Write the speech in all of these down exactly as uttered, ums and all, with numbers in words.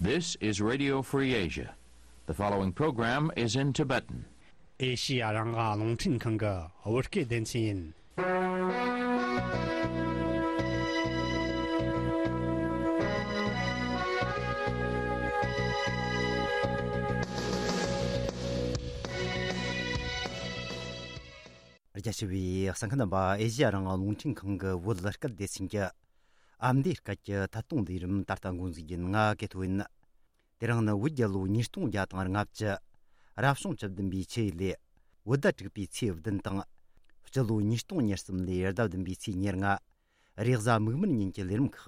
This is Radio Free Asia. The following program is in Tibetan. ཨེ་ཤི་ཡ་རང་དབང་རླུང་འཕྲིན་ཁང་གི་བོད་སྐད་སྡེ་ཚན་ཡིན། རྒྱ་ཆེ་བའི་གསན་མཁན་རྣམ་པ། ཨེ་ཤི་ཡ་རང་དབང་རླུང་འཕྲིན་ཁང་གི་བོད་སྐད་སྡེ་ཚན་གྱི་ཨ་མདོའི་སྐད་ཀྱི་ཐད་གཏོང་ལས་རིམ་ད་ལྟ་འགོ་འཛུགས་ཡིན། ང་ཀེ་ཐོ་ཡིན། དེ་རིང་ནི་བོད་རྒྱལ་ལོ་ཉིས་སྟོང་བརྒྱ་དང་ལྔ་བཅུ། རབ་བྱུང་བཅུ་བདུན་པའི་ཆུ་ཡོས་ལོའི་བོད་ཟླ་དྲུག་པའི་ཚེས་བདུན་དང་། སྤྱི་ལོ་ཉིས་སྟོང་ཉེར་གསུམ་ལོའི་ཟླ་བདུན་པའི་ཚེས་ཉེར་ལྔ། རེས་གཟའ་མིག་དམར་ཉིན་གྱི་ལས་རིམ་ཁག་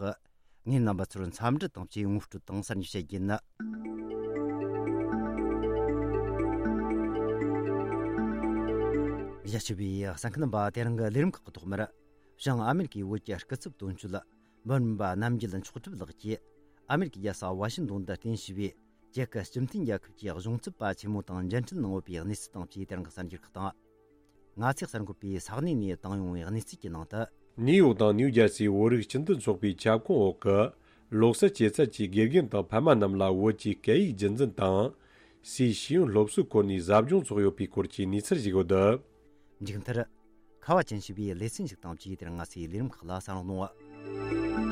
ངས་རྣམ་པ་ཚོར་འཚམས་འདྲི་དང་བཅས་ངོ་སྤྲོད་དང་གསར་འགྱུར་བཤད་རྒྱུ་ཡིན། རྒྱ་ཆེ་བའི་གསན་མཁན་རྣམ་པ། དེ་རིང་གི་ལས་རིམ་ཁག་གི་ཐོག་མར། བྱང་ཨ་མེ་རི་ཀའི་བོད་ཀྱི་སྐུ་ཚབ་དོན་གཅོད་འབུམ་རམས་པ་རྣམ་རྒྱལ་མཆོག་གྲུབ་ལགས་ཀྱིས་ཨ་མེ་རི་ཀའི་རྒྱལ་ས་ཝ་ཤིང་ཏོན་དུ་རྟེན་གཞི་བའི་ཅེག་གི་སྤྱི་མཐུན་རྒྱལ་ཁབ་ཀྱི་གཞུང་ཚབ་པ་ཆེན་མོ་དང་མཇལ་འཕྲད་གནང་ཡོད་པའི་གནས་ཚུལ་དང་བཅས་དེ་རིང་གི་གསར་འགྱུར་ཁག་དང་། ང་ཚོས་གསར་འགོད་པས་ས་གནས་ནས་བཏང་ཡོང་བའི་གནས་ཚུལ་གྱི་ནང་དུ། ནིའུ་ཡོག་དང་ནིའུ་ཇར་སིའི་བོད་རིགས་སྤྱི་མཐུན་ཚོགས་པའི་ཁྱབ་ཁོངས་འོག་གི་ལོ་གསར་སྐྱེད་ཚལ་གྱི་དགེ་རྒན་དང་ཕ་མ་རྣམས་ལ་བོད་ཀྱི་སྐད་ཡིག་རྒྱུན་འཛིན་དང་། སའི་ཤེས་ཡོན་སློབ་གསོའི་སྐོར་ནས་ཟབ་སྦྱོང་ཚོགས་ཡོད་པའི་སྐོར་གྱི་གནས་ཚུལ་ཞིག་ཡོད། མཇུག་མཐར། ཁ་བ་ཅན་ཞེས་པའི་ལེ་ཚན་ཞིག་དང་བཅས་དེར་ང་ཚོའི་ལས་རིམ་ཁག་ལ་གསན་རོགས་གནང་།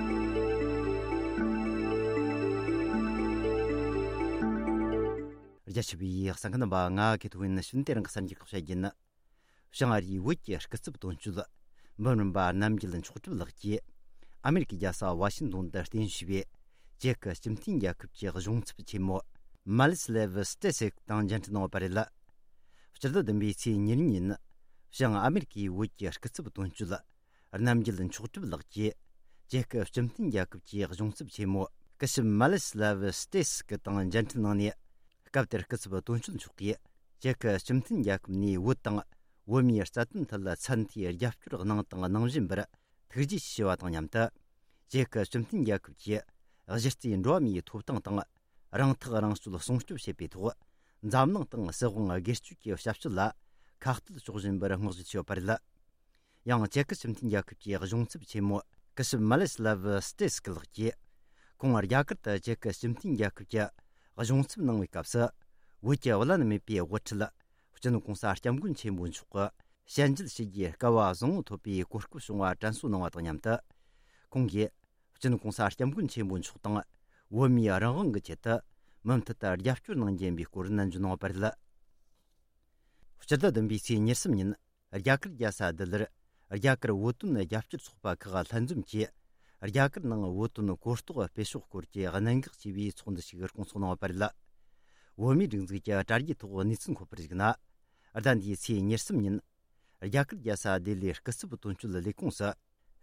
རྒྱ་ཆེ་བའི་གསན་མཁན་རྣམ་པ། ང་ཀེ་ཐོ་ཡིན། ཕྱི་ནས་དེ་རིང་གི་གསར་འགྱུར་ཁག་བཤད་རྒྱུ་ཡིན། བྱང་ཨ་རིའི་བོད་ཀྱི་སྐུ་ཚབ་དོན་གཅོད་འབུམ་རམས་པ་རྣམ་རྒྱལ་མཆོག་གྲུབ་ལགས་ཀྱིས་ཨ་མེ་རི་ཀའི་རྒྱལ་ས་ཝ་ཤིང་ཏོན་དུ་རྟེན་གཞི་བའི་ཅེག་གི་སྤྱི་མཐུན་རྒྱལ་ཁབ་ཀྱི་གཞུང་ཚབ་ཆེན་མོ་མ་ལིས་ལེ་ཝི་སྟེ་སིག་དང་མཇལ་འཕྲད་གནང་བ་རེད། སྤྱི་ཟླ་བདུན་པའི་ཚེས་ཉེར་གཉིས་ཉིན། བྱང་ཨ་མེ་རི་ཀའི་བོད་ཀྱི་སྐུ་ཚབ་དོན་གཅོད་རྣམ་རྒྱལ་མཆོག་གྲུབ་ལགས་ཀྱིས་ཅེག་གི་སྤྱི་མཐུན་རྒྱལ་ཁབ་ཀྱི་གཞུང་ཚབ་ཆེན་མོ་སྐུ་ཞབས་མ་ལིས་ལེ་ཝི་སྟེ་སིག་དང་མཇལ་འཕྲད་གནང་ནས། སྐབས་དེར་སྐུ་ཚབ་དོན་གཅོད་མཆོག་གིས་ཅེག་གི་སྤྱི་མཐུན་རྒྱལ་ཁབ་ནས་བོད་དང་བོད་མིའི་རྩ་དོན་ཐད་ཚད་མཐོའི་རྒྱབ་སྐྱོར་གནང་དང་གནང་བཞིན་པར་ཐུགས་རྗེ་ཆེ་ཞུ་བ་དང་མཉམ་དུ། ཅེག་གི་སྤྱི་མཐུན་རྒྱལ་ཁབ་ཀྱིས་གཞི་རྩའི་འགྲོ་བ་མིའི་ཐོབ་ཐང་དང་རང་ཐག་རང་གཅོད་སྲུང་སྐྱོབ་བྱེད་པའི་ཐོག་འཛམ་གླིང་དང་སྲིད་དབང་སྒེར་གཅོད་ཀྱི་ཞབས་ཞུ་ལ་ཁ་གཏད་གཅོག་བཞིན་པར་བསྔགས་བརྗོད་བྱས་ཡོད་པ་རེད། ཡང་ཅེག་གི་སྤྱི་མཐུན་རྒྱལ་ཁབ་ཀྱི་གཞུང་ཚབ་ཆེན་མོ་སྐུ་ཞབས་མ་ལེ་སི་ལ་ཝི་སྟེ་སི་ཀི་ལགས་ཀྱིས། ཁོང་རྒྱ་གར་དུ་ཅེག་གི་སྤྱི་མཐུན་རྒྱལ་ཁབ་ཀྱི་གཞུང་ཚབ་གནང་བའི་སྐབས་སུ། བོད་ཀྱི་བླ་ན་མེད་པའི་དབུ་ཁྲིད་སྤྱི་ནོར་༧གོང་ས་༧སྐྱབས་མགོན་ཆེན་པོ་མཆོག་གི་ཞལ་མཇལ་ཞུ་རྒྱུའི་སྐལ་བ་བཟང་བོ་ཐོབ་པའི་གོ་སྐབས་བྱུང་བ་དྲན་གསོ་གནང་བ་དང་མཉམ་དུ། ཁོང་གིས་སྤྱི་ནོར་༧གོང་ས་༧སྐྱབས་མགོན་ཆེན་པོ་མཆོག་དང་བོད་མིའི་རང་དབང་གི་ཆེད་དུ་མུ་མཐུད་དུ་རྒྱབ་སྐྱོར་གནང་རྒྱུ་ཡིན་པའི་སྐོར་ནན་བརྗོད་གནང་བ་རེད། སྤྱི་ཟླ་བདུན་པའི་ཚེས་ཉེར་གསུམ་ཉིན། རྒྱ་གར་རྒྱལ་ས་ལྡི་ལིར་རྒྱ་གར་བོད་དོན་རྒྱབ་སྐྱོར་ཚོགས་པ་ཁག་ལྷན་འཛོམས་ཀྱིས་རྒྱ་གར་ནང་བོད་དོན་གོ་རྟོགས་སྤེལ་ཕྱོགས་སྐོར་གྱི་གནད་འགག་ཆེ་བའི་ཚོགས་འདུ་ཞིག་སྐོང་ཚོགས་གནང་བ་རེད། བོད་མིའི་སྒྲིག་འཛུགས་ཀྱི་དྲ་རྒྱའི་ཐོག་གནས་ཚུལ་འཁོད་པར་གཞིགས་ན། ཟླ་འདིའི་ཚེས་ཉེར་གསུམ་ཉིན། རྒྱ་གར་རྒྱལ་ས་ལྡི་ལིའི་སྐུ་ཚབ་དོན་གཅོད་ལས་ཁུངས་སུ།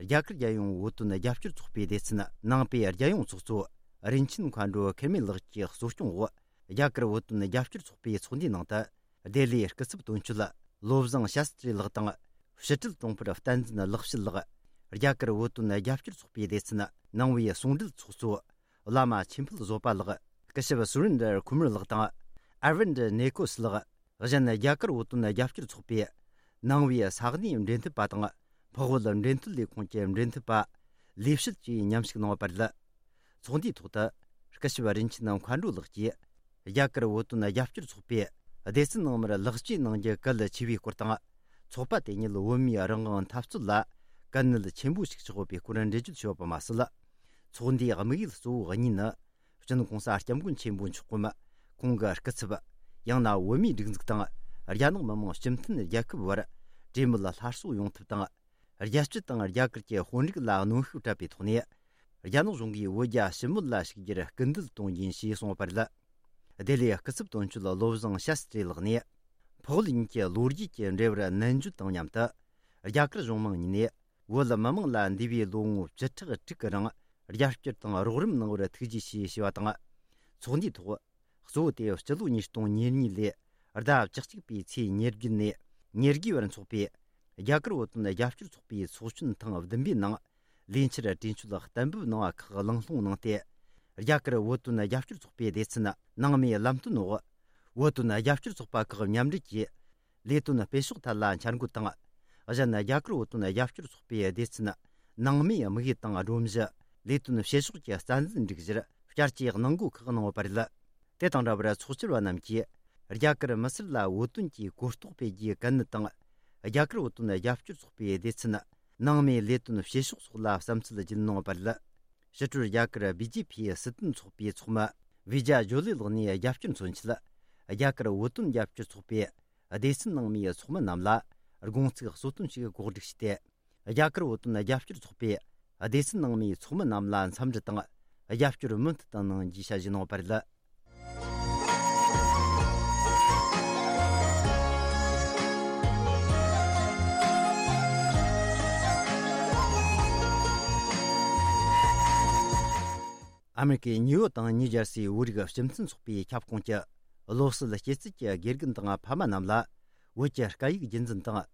རྒྱ་གར་རྒྱལ་ཡོངས་བོད་དོན་རྒྱབ་སྐྱོར་ཚོགས་པའི་སྡེ་ཚན་ནང་པའི་རྒྱལ་ཡོངས་ཚོགས་གཙོ་རིན་ཆེན་མཁའ་འགྲོ་ཁེར་མེ་ལགས་ཀྱི་གཙོ་སྐྱོང་འོག་རྒྱ་གར་བོད་དོན་རྒྱབ་སྐྱོར་ཚོགས་པའི་ཚོགས་འདུའི་ནང་དུ། ལྡི་ལིའི་སྐུ་ཚབ་དོན་གཅོད་བློ་བཟང་ཤཱསྟྲི་ལགས་དང་། ཕྱི་དྲིལ་དྲུང་འཕར་བསྟན་འཛིན་ལེགས་བཤད་ལགས། རྒྱ་གར་བོད་དོན་རྒྱབ་སྐྱོར་ཚོགས་པའི་སྡེ་ཚན་ནང་པའི་ཟུང་འབྲེལ་ཚོགས་གཙོ་བླ་མ་ཆོས་འཕེལ་བཟོད་པ་ལགས། སྐུ་ཞབས་སུ་རིན་དར་ཁུ་མར་ལགས་དང་། ཨར་ཝིན་དར་ནེ་ཀོས་ལགས། གཞན་རྒྱ་གར་བོད་དོན་རྒྱབ་སྐྱོར་ཚོགས་པའི་ནང་པའི་ས་གནས་འབྲེལ་མཐུད་པ་དང་། འཕགས་བོད་འབྲེལ་མཐུད་ལས་ཁུངས་ཀྱི་འབྲེལ་མཐུད་པ་ལས་བྱེད་བཅས་མཉམ་ཞུགས་གནང་བ་རེད། ཚོགས་འདུའི་ཐོག་ཏུ། སྐུ་ཞབས་རིན་ཆེན་མཁའ་འགྲོ་ལགས་ཀྱིས། རྒྱ་གར་བོད་དོན་རྒྱབ་སྐྱོར་ཚོགས་པས་སྡེ་ཚན་ནང་མར་ལེགས་བཅོས་གནང་རྒྱུ་གལ་ཆེ་བའི་སྐོར་དང་། ཚོགས་པ་དེ་ཉིད་བོད་མིའི་རང་དབང་འཐབ་རྩོད་ལ་གལ་གནད་ཆེན་པོ་ཞིག་ཆགས་ཡོད་པའི་སྐོར་འགྲེལ་བརྗོད་བྱས་ཡོད་པ་མ་ཟད། ཚོགས་འདུའི་དམིགས་ཡུལ་གཙོ་བོ་གཉིས་ནི། སྤྱི་ནོར་༧གོང་ས་༧སྐྱབས་མགོན་ཆེན་པོ་མཆོག་གམ། ཁོང་གི་སྐུ་ཚབ། ཡང་ན་བོད་མིའི་སྒྲིག་འཛུགས་དང་། རྒྱ་ནག་མི་དམངས་སྤྱི་མཐུན་རྒྱལ་ཁབ་བར་གྲོས་མོལ་སླར་གསོ་ཡོང་ཐབས་དང་། རྒྱལ་སྤྱི་དང་རྒྱ་གར་གྱི་དཔོན་རིགས་ལ་གནོན་ཤུགས་སྤྲད་པའི་ཐོག་ནས། རྒྱ་ནག་གཞུང་གིས་བོད་རྒྱ་ཞི་མོལ་ལ་ཞུགས་རྒྱུར་སྐུལ་འདེད་གཏོང་རྒྱུ་ཡིན་ཞེས་གསུངས་པ་རེད། ལྡི་ལིའི་སྐུ་ཚབ་དོན་གཅོད་བློ་བཟང་ཤཱསྟྲི་ལགས་ནས། འཕགས་ལུགས་གཉིས་ཀྱི་ལོ་རྒྱུས་ཀྱི་འབྲེལ་བར་ནན་བརྗོད་དང་མཉམ་དུ། རྒྱ་གར་གཞུང་མང་གཉིས་ནས་བོད་མི་མང་ལ་འདས་པའི་ལོ་ངོ་བཅུ་ཕྲག་དྲུག་གི་རིང་རྒྱབ་སྐྱོར་དང་རོགས་རམ་གནང་བར་ཐུགས་རྗེ་ཆེ་ཞེས་པ་དང་། ཚོགས་འདུའི་ཐོག་གཙོ་བོ་དེ་སྤྱི་ལོ་ཉིས་སྟོང་ཉེར་གཉིས་ལོའི་ཟླ་བཅུ་གཅིག་པའི་ཚེས་ཉེར་བརྒྱད་ནས་ཉེར་དགུ་བར་འཚོགས་པའི་རྒྱ་གར་བོད་དོན་རྒྱབ་སྐྱོར་ཚོགས་པའི་ཚོགས་ཆེན་ཐེངས་བདུན་པའི་ནང་ལས་འཆར་གྲོས་ཆོད་གཏན་འབེབས་གནང་བ་ཁག་གླེང་སློང་གནང་སྟེ། རྒྱ་གར་བོད་དོན་རྒྱབ་སྐྱོར་ཚོགས་པའི་སྡེ་ཚན་ནང་མའི་ལམ་སྟོན་འོག་བོད་དོན་རྒྱབ་སྐྱོར་ཚོགས་པ་ཁག་མཉམ་འབྲེལ་གྱིས། ལས་དོན་སྤེལ་ཕྱོགས་ཐད་ལ་འཆར་འགོད་དང་། གཞན་རྒྱ་གར་བོད་དོན་རྒྱབ་སྐྱོར་ཚོགས་པའི་སྡེ་ཚན་ནང་མའི་དམིགས་ཡུལ་དང་སྒྲོམ་གཞི། ལས་དོན་སྤེལ་ཕྱོགས་ཀྱི་རྩ་འཛིན་སྒྲིག་གཞིར་ བསྐྱར་གྱི་གནང་སྒོ་ཁག་གནང་ཡོད་པ་རེད། དེ་དང་འདྲ་བར་ཚོགས་བཅར་བ་རྣམས་ཀྱིས་རྒྱ་གར་མི་སེར་ལ་བོད་དོན་གྱི་གོ་རྟོགས་སྤེལ་རྒྱུའི་གལ་གནད་དང་། རྒྱ་གར་བོད་དོན་རྒྱབ་སྐྱོར་ཚོགས་པའི་སྡེ་ཚན་ནང་མིའི་ལས་དོན་བྱེད་ཕྱོགས་སོགས་ལ་བསམ་ཚུལ་བརྗོད་གནང་ཡོད་པ་རེད། ཕྱི་དྲོར་རྒྱ་གར་བི་ཇེ་པི་སྲིད་དོན་ཚོགས་པའི་ཚོགས་མི་བི་ཇ་ཇོ་ལི་ལགས་ནས་རྒྱབ་སྐྱོར་མཚོན་ཆེད། རྒྱ་གར་བོད་དོན་རྒྱབ་སྐྱོར་ཚོགས་པའི་སྡེ་ཚན་ནང་མིའི་ཚོགས་མི་རྣམས་ལ་དགོངས་ཚིག་གསོལ་སྟོན་ཞིག་གོ་སྒྲིག་བྱས་ཏེ། རྒྱ་གར་བོད་དོན་རྒྱབ་སྐྱོར་ཚོགས་པའི་སྡེ་ཚན་ནང་མིའི་ཚོགས་མི་རྣམས་ལ་འཚམས་འདྲི་དང་རྒྱབ་སྐྱོར་མུ་མཐུད་དུ་གནང་རྒྱུའི་བྱ་གཞི་གནང་བ་རེད། ཨ་མེ་རི་ཀའི་ནིའུ་ཡོག་དང་ནིའུ་ཇར་སིའི་བོད་རིགས་སྤྱི་མཐུན་ཚོགས་པའི་ཁྱབ་ཁོངས་ཀྱི་བློ་གསལ་སྐྱེད་ཚལ་གྱི་དགེ་རྒན་དང་ཕ་མ་རྣམས་ལ་བོད་ཀྱི་སྐད་ཡིག་རྒྱུན་འཛིན་དང་།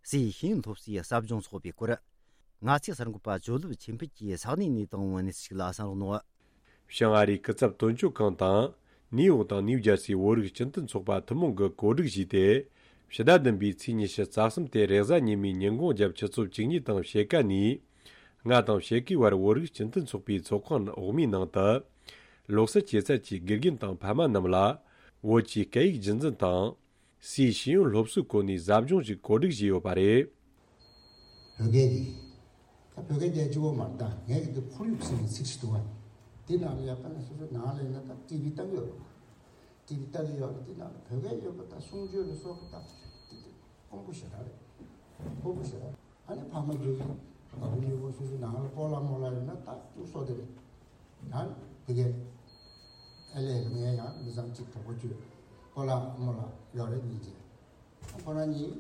སའི་ཤེས་ཡོན་སློབ་གསོའི་ཟབ་སྦྱོང་ཚོགས་པའི་སྐོར། ང་ཚོའི་གསར་འགོད་པ་ཇོ་ལིབ་ཆོས་འཕེལ་གྱིས་ས་གནས་ནས་བཏང་བའི་གནས་ཚུལ་ཞིག་ལ་གསན་རོགས་གནང་། བྱང་ཨ་རིའི་སྐུ་ཚབ་དོན་གཅོད་ཁང་དང་། ནིའུ་ཡོག་དང་ནིའུ་ཇར་སིའི་བོད་རིགས་སྤྱི་མཐུན་ཚོགས་པ་ཐུན་མོང་གིས་གོ་སྒྲིག་བྱས་ཏེ། ཕྱི་ཟླ་བདུན་པའི་ཚེས་ཉི་ཤུ་རྩ་གསུམ་སྟེ་རེས་གཟའ་ཉི་མའི་ཉིན་གུང་རྒྱབ་ཆུ་ཚོད་བཅུ་གཉིས་དང་ཕྱེད་ཀ་ནས། ལྔ་དང་ཕྱེད་ཀའི་བར་བོད་རིགས་སྤྱི་མཐུན་ཚོགས་པའི་ཚོགས་ཁང་འོག་མའི་ནང་དུ། བློ་གསལ་སྐྱེད་ཚལ་གྱི་དགེ་རྒན་དང་ཕ་མ་རྣམས་ལ། བོད་ཀྱི་སྐད་ཡིག་རྒྱུན་འཛིན་དང་། སའི་ཤེས་ཡོན་སློབ་གསོའི་སྐོར་ནས་ཟབ་སྦྱོང་ཞིག་གོ་སྒྲིག་བྱས་ཡོད་པ་རེད། བོད་སྐད་ཀྱི། ད་བོད་སྐད་རྒྱལ་སྤྱི་བོ་མར་ད་ངས་ཀྱི་ཁོར་ཡུག་ཟེར་བའི་ཚིག་ཞིག་འདུག་བ། དེ་ནང་ལ་ཡག་པ་ན་སོ་སོའི་ནང་ལ་ཡིན་ན་ད་ཊི་བི་ལྟ་གི་ཡོད་རེད། ཊི་བི་ལྟ་གི་ཡོད་རེད། དེ་ནང་ལ་བོད་སྐད་ཡོད་པ་ད་གསུང་ཆོས་ལ་སོགས་པ་ད་དེ་དེ་དཀོན་པོ་ཞེ་དྲག་རེད། ཁག་པོ་ཞེ་དྲག་ཨ་ནི་ཕ་མ་ཚོས་ཀྱི་བ་སྤུ་གཉིས་པོ་སོ་སོའི་ནང་ལ་སྤོ་ལགས་རྨོ་ལགས་ཡོད་ན་ད་ཅུང་སོ་དེ་རེད། ད་དེ་གས་ཨེ་ལས་ངས་ཡང་མི་ཚང་གཅིག་གྲོགས་པོ་བཅོས་སྤོ་ལགས་རྨོ་ལགས་ཡོད་རེད་གཉིས་ཀྱི། ཁོ་རང་གཉིས་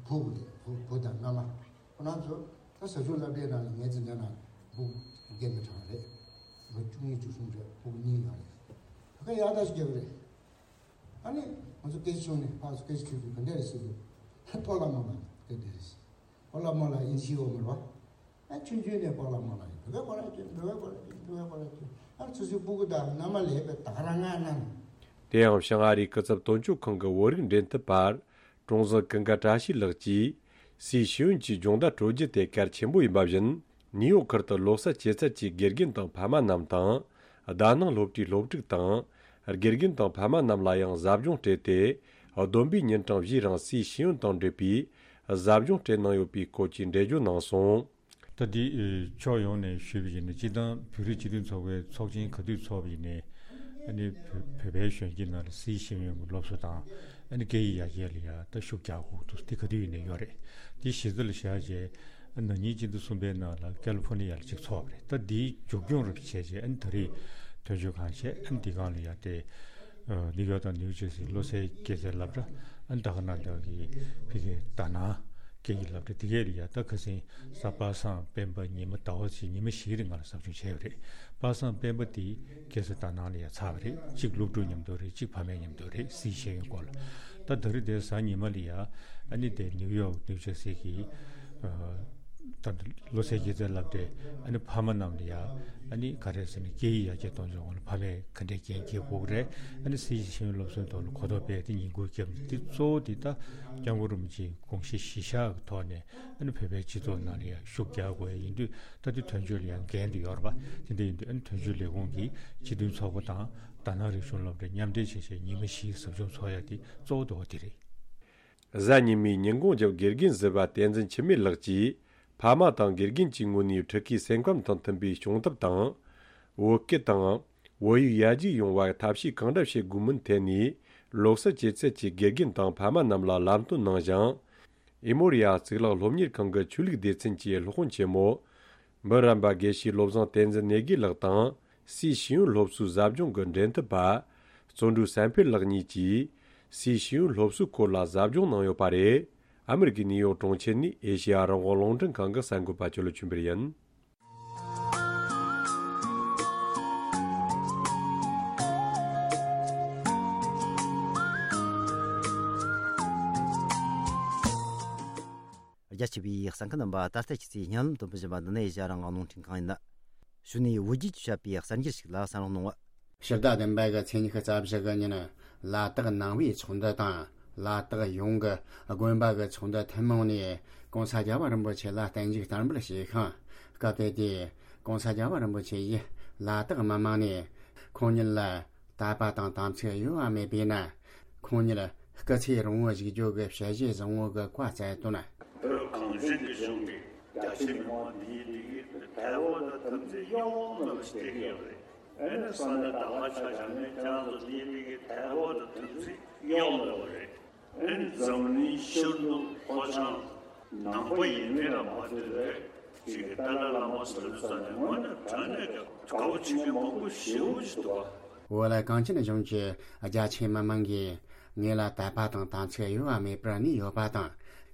བུ་བུ་རེད། བུ་བུ་དང་མནའ་མ། ཁོ་རང་ཚོ་ད་ཟ་ཆུ་སློབ་གྲྭའི་ནང་ལ་ངའི་འཛིན་གྲྭ་ནང་བུ་རྒན་པའི་གྲངས་རེད། ལོ་བཅུ་གཉིས་བཅུ་གསུམ་རེད། བུ་གཉིས་ཡོད་རེད། ད་ག་ཡག་ཐག་ཆོད་རྒྱག་གི་རེད། ཨ་ནི་ང་ཚོ་སྐད་ཆ་བྱུང་ནས་ཕར་ཚུར་སྐད་ཆ་དྲིས་དུས་ག་འདྲ་རེད་ཟེར་དུས། སྤོ་ལགས་རྨོ་ལགས་སྐད་འདྲ་རེད་ཟེར། སྤོ་ལགས་རྨོ་ལགས་ཨིན་ཇི་ཨོ་མ་རེད་བ། ཨ་ཆུང་ཆུང་ནས་སྤོ་ལགས་རྨོ་ལགས་ཡིན། བོད་སྐད་གོ་ར་ཅན། བོད་སྐད་གོ་ར་ཅན། བོད་སྐད་གོ་ར་ཅན། ཨ་ཆུ་ཚོད་སྤུ་གུ་དང་མནའ་མ་ལས་པའི་ད་ག་རང་ང་ནང་། དེ་ཡང་བྱང་ཨ་རིའི་སྐུ་ཚབ་དོན་གཅོད་ཁང་གི་བོད་རིགས་འབྲེལ་མཐུད་པ། ཀྲུང་ཟིང་ཀུན་དགའ་བཀྲ་ཤིས་ལགས་ཀྱིས། སའི་ཤེས་ཡོན་གྱི་སྦྱོང་བརྡར་སྤྲོད་རྒྱུ་དེ་གལ་ཆེན་པོ་ཡིན་པ་བཞིན། ནིའུ་ཡོག་ཁུལ་དུ་བློ་གསལ་སྐྱེད་ཚལ་གྱི་དགེ་རྒན་དང་ཕ་མ་རྣམས་དང་། དཱ་ནང་སློབ་གྲྭའི་སློབ་ཕྲུག་དང་། དགེ་རྒན་དང་ཕ་མ་རྣམས་ལ་ཡང་ཟབ་སྦྱོང་སྤྲད་དེ། བསྡོམས་པས་ཉིན་གྲངས་བཞིའི་རིང་སའི་ཤེས་ཡོན་དང་འབྲེལ་བའི་ཟབ་སྦྱོང་སྤྲད་གནང་ཡོད་པའི་སྐོར་གྱི་འགྲེལ་བརྗོད་གནང་སོང་། ད་འདི་ཕྱོགས་ཡོངས་ནས་ཞུས་པ་ཡིན་ན། སྤྱིར་བཏང་བོད་རིགས་སྤྱི་མཐུན་ཚོགས་པའི་ཚོགས་ཆེན་ག་དུས་ཚོགས་པ་ཡིན་ནའི། ཨ་ནི་བོད་བོད་པའི་གཞོན་སྐྱེས་ནང་ལ་སའི་ཤེས་ཡོན་གྱི་སློབ་གསོ་དང་། ཨ་ནི་སྐད་ཡིག་ཡར་རྒྱས་ལ་ཡང་ད་ཤུགས་རྒྱག་དགོས་འདུག། དེ་ག་དུས་ཡིན་ནའི་ཡོད་རེད། དེ་གཞི་རྩ་ལ་བཞག་རྗེས། ཨ་ན་ནིང་སྤྱི་ཟླ་གསུམ་པའི་ནང་ལ་ཀལ་ལི་ཕོར་ནི་ཡ་ལ་གཅིག་ཚོགས་པ་རེད། ད་འདིའི་མཇུག་སྐྱོང་རུ་བྱས་རྗེས། ཨ་ནི་ད་རེས་དོན་གཅོད་ཁང་བྱས། ཨ་ནི་འདི་སྒང་ལ་ཡ་དེ། ཨ་ནིའུ་ཡོག་དང་ནིའུ་ཇར་སི་བློ་གསལ་སྐྱེད་ཚལ་སློབ་གྲྭ། ཨ་ནི་ད་ག་ནང་བཞིན་གྱི་ཕ་གིའི་དཱ་ནང་སྐད་ཡིག་སློབ་གྲྭ། དེ་གས་ལ་ཡ་ད་ཁ་སང་གཟའ་པ་སངས་སྤེན་པ་ཉི་མ་ཟླ་བ་གཅིག་ཉི་མ་བཞིའི་རིང་ལ་ཟབ་སྦྱོང་བྱས་པ་རེད། པ་སངས་སྤེན་པ་དེ་སྐྱེད་ཚལ་དཱ་ནང་ལ་ཡ་ཚར་བ་རེད། གཅིག་སློབ་ཕྲུག་མཉམ་དུ་རེད། གཅིག་ཕ་མའི་མཉམ་དུ་རེད། སའི་ཤེས་ཡོན་སྐོར་ལ། ད་ད་རེས་དེ་གཟའ་ཉི་མ་ལ་ཡ། ཨ་ནི་དེ་ནིའུ་ཡོག་ནིའུ་ཇར་སི་གི། ཨ། ད་བློ་གསལ་སྐྱེད་ཚལ་སློབ་གྲྭའི་ཨ་ནི་ཕ་མ་རྣམས་ལ་ཡ། ཨ་ནི་ག་རེ་ཟེར་ན། སྐད་ཡིག་ཡར་རྒྱས་གཏོང་ཕྱོགས་ལ་ཕ་མས་ག་འདྲའི་འགན་འཁྱེར་དགོས་ཀྱི་རེད། ཨ་ནི་སའི་ཤེས་ཡོན་སློབ་གསོའི་ཐོག་ལ་གོ་རྟོགས་སྤེལ་ཏེ་ཉིན་གུང་བརྒྱབ་ནས། དེ་གཙོ་བོ་དེ་ད་སྐྱབས་མགོན་རིན་པོ་ཆེའི་དགོངས་གཞི་གཞིར་བཞག་གི་ཐོག་ནས། ཨ་ནི་བོད་པའི་སྤྱི་ཚོགས་ནང་ལ་ཡང་ཤུགས་རྒྱག་དགོས་ཡ་ཡིན་དུས། ད་དེ་དོན་གཅོད་ལ་ཡང་འགན་དེ་ཡོད་རེད་པ། དེ་འདྲ་ཡིན་དུས། ཨ་ནི་དོན་གཅོད་ལས་ཁུངས་ཀྱི་སྤྱི་མཐུན་ཚོགས་པ་དང་དཱ་ནང་རིག་གཞུང་སློབ་གྲྭ་མཉམ་འབྲེལ་བྱས་བྱས་ཉི་མ་བཞིའི་ཟབ་སྦྱོང་ཚོགས་ཡ་དེ་གཙོ་བོ་དེ་བ་དེ་རེད། གཟའ་ཉི་མའི་ཉིན་གུང་རྒྱབ་དགེ་རྒན་ཟུར་པ་བསྟན་འཛིན་འཆི་མེད་ལགས་ཀྱིས། ཕ་མ་དང་དགེ་རྒན་གྱི་ངོས་ནས་ཕྲུ་གུའི་སེམས་ཁམས་དང་མཐུན་པའི་སྦྱོང་ཐབས་དང་། བོད་སྐད་དང་བོད་ཡིག་ཡར་རྒྱས་ཡོང་བར་ཐབས་ཤེས་གང་འདྲ་བྱེད་དགོས་མིན་ཐད་ནས། བློ་གསལ་སྐྱེད་ཚལ་གྱི་དགེ་རྒན་དང་ཕ་མ་རྣམས་ལ་ལམ་སྟོན་གནང་ཞིང་། ཨི་མོ་རི་ཡ་གཙུག་ལག་སློབ་གཉེར་ཁང་གི་ཆོས་ལུགས་སྡེ་ཚན་གྱི་སློབ་དཔོན་ཆེན་མོ། འབུམ་རམས་པ་དགེ་བཤེས་བློ་བཟང་བསྟན་འཛིན་གནས་དགེ་ལགས་དང་། སའི་ཤེས་ཡོན་སློབ་གསོའི་ཟབ་སྦྱོང་གི་འབྲེལ་མཐུད་པ། བརྩོན་འགྲུས་བསམ་འཕེལ་ལགས་གཉིས་ཀྱིས། སའི་ཤེས་ཡོན་སློབ་གསོའི་སྐོར་ལ་ཟབ་སྦྱོང་གནང་ཡོད་པ་རེད། ཨ་མི་རི་ཀའི་ནིའུ་ཡོག་གྲོང་ཁྱེར་ནས་ཨེ་ཤེ་ཡ་རང་དབང་རླུང་འཕྲིན་ཁང་གི་གསར་འགོད་པ་ཆོས་ལོ་ཆོས་འཕེལ་ཡིན། རྒྱ་ཆེ་བའི་གསན་མཁན་རྣམ་པ། ད་ལྟ་ཁྱེད་ཚོས་སྙན་ལམ་དུ་འབུལ་བཞིན་པ་འདི་ནི་ཨེ་ཤ་ཡ་རང་དབང་རླུང་འཕྲིན་ཁང་ཡིན། གཞུག་ནས་བོད་བརྒྱུད་ཀྱིས་བཤད་པའི་གསར་འགྱུར་ཞིག་ལ་གསན་རོགས་གནང་། ཕྱི་ཟླ་བདུན་པ་གི་ཚེས་ཉི་ཤུ་རྩ་བཞི་གི་ཉིན། ལ་དྭགས་ནང་པའི་ཚོགས་འདུ་དང་། ལ་དྭགས་ཡོངས་ཀྱི་དགོན་པ་གི་ཚོགས་འདུ་ཐུན་མོང་ནས་༸གོང་ས་༸རྒྱལ་བ་རིན་པོ་ཆེ་ལ་བརྟན་བཞུགས་བསྟར་འབུལ་བྱས་ཤིང་། སྐབས་དེ་དུས་༸གོང་ས་༸རྒྱལ་བ་རིན་པོ་ཆེ་ཡིས་ལ་དྭགས་མི་མང་ནས་ ཁོང་ཉིད་ལ་དད་པ་དང་དམ་ཚིག་གཡོ་བ་མེད་པས་ན། ཁོང་ཉིད་སྐུ་ཚེ་རིང་བོར་བཞུགས་རྒྱུ་གི་ཞལ་བཞེས་བཟང་བོ་གི་བཀའ་སྩལ་དོན། བོད་གངས་ཅན་གྱི་ལྗོངས་ཀྱི་རྒྱ་ཆེ་མི་མང་འདིའི་འདི་གི་དད་པ་དང་དམ་ཚིག་གཡོ་བ་མེད་པ་ཞིག་བསྟན་གྱི་ཡོད་རེད། ཨ་ནི་ས་གནས་དར་དཀར་ཆ་བཞག་ནས་ཁྱེད་རང་ཚོ་འདིའི་འདི་གི་དད་པ་དང་དམ་ཚིག་གཡོ་བ་མེད་པ་རེད། ཨ་ནི་འཛམ་གླིང་ཤར་ནུབ་ལྷོ་བྱང་ནང་པ་ཡིན་མིན་ལ་མ་ལྟོས་པའི་ཅིག་གི་ཏཱ་ལའི་བླ་མ་ཟེར་ས་ནས་དངོས་གནས་དྲང་གནས་ཀྱི་དགའ་པོ་བྱེད་མཁན་མང་པོ་ཞེ་པོ་ཅིག་འདུག་པ། བོད་ལ་གངས་ཅན་ལྗོངས་ཀྱི་རྒྱ་ཆེ་མི་མང་གིས་ངེད་ལ་དད་པ་དང་དམ་ཚིག་གཡོ་བ་མེད་པར་གནས་ཡོད་པ་དང་།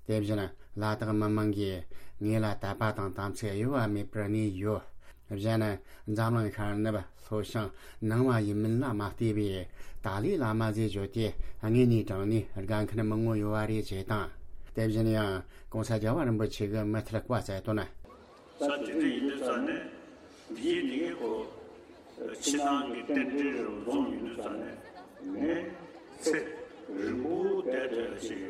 དེ་བཞིན་ལ་དྭགས་མི་མང་གིས་ངེད་ལ་དད་པ་དང་དམ་ཚིག་གཡོ་བ་མེད་པར་གནས་ཡོད། གཞན་འཛམ་གླིང་ཤར་ནུབ་ལྷོ་བྱང་ནང་བ་ཡིན་མིན་ལ་མ་ལྟོས་པའི་ཏཱ་ལའི་བླ་མ་ཟེར་བརྗོད་དེ་དངོས་གནས་དྲང་གནས་དགའ་མཁན་མང་བོ་ཡོད་པ་རེད་ཅེས་དང་། དེ་བཞིན་ཡང་གོང་ས་རྒྱལ་བ་རིན་པོ་ཆེ་གི་མི་ཐར་བཀའ་སྩལ་དོན། ས་དེ་འདྲ་ཡིན་དུས་ཙང་ནས་འདིའི་འདི་གའི་སྐོར་ཕྱི་ནང་གི་རྟེན་འབྲེལ་རུ་འཛོམས་ཡིན་དུས་ཙང་ནས་ངས་ཚེ་རིང་པོ་བསྡད་ཐུབ་ཡ་ཞིག་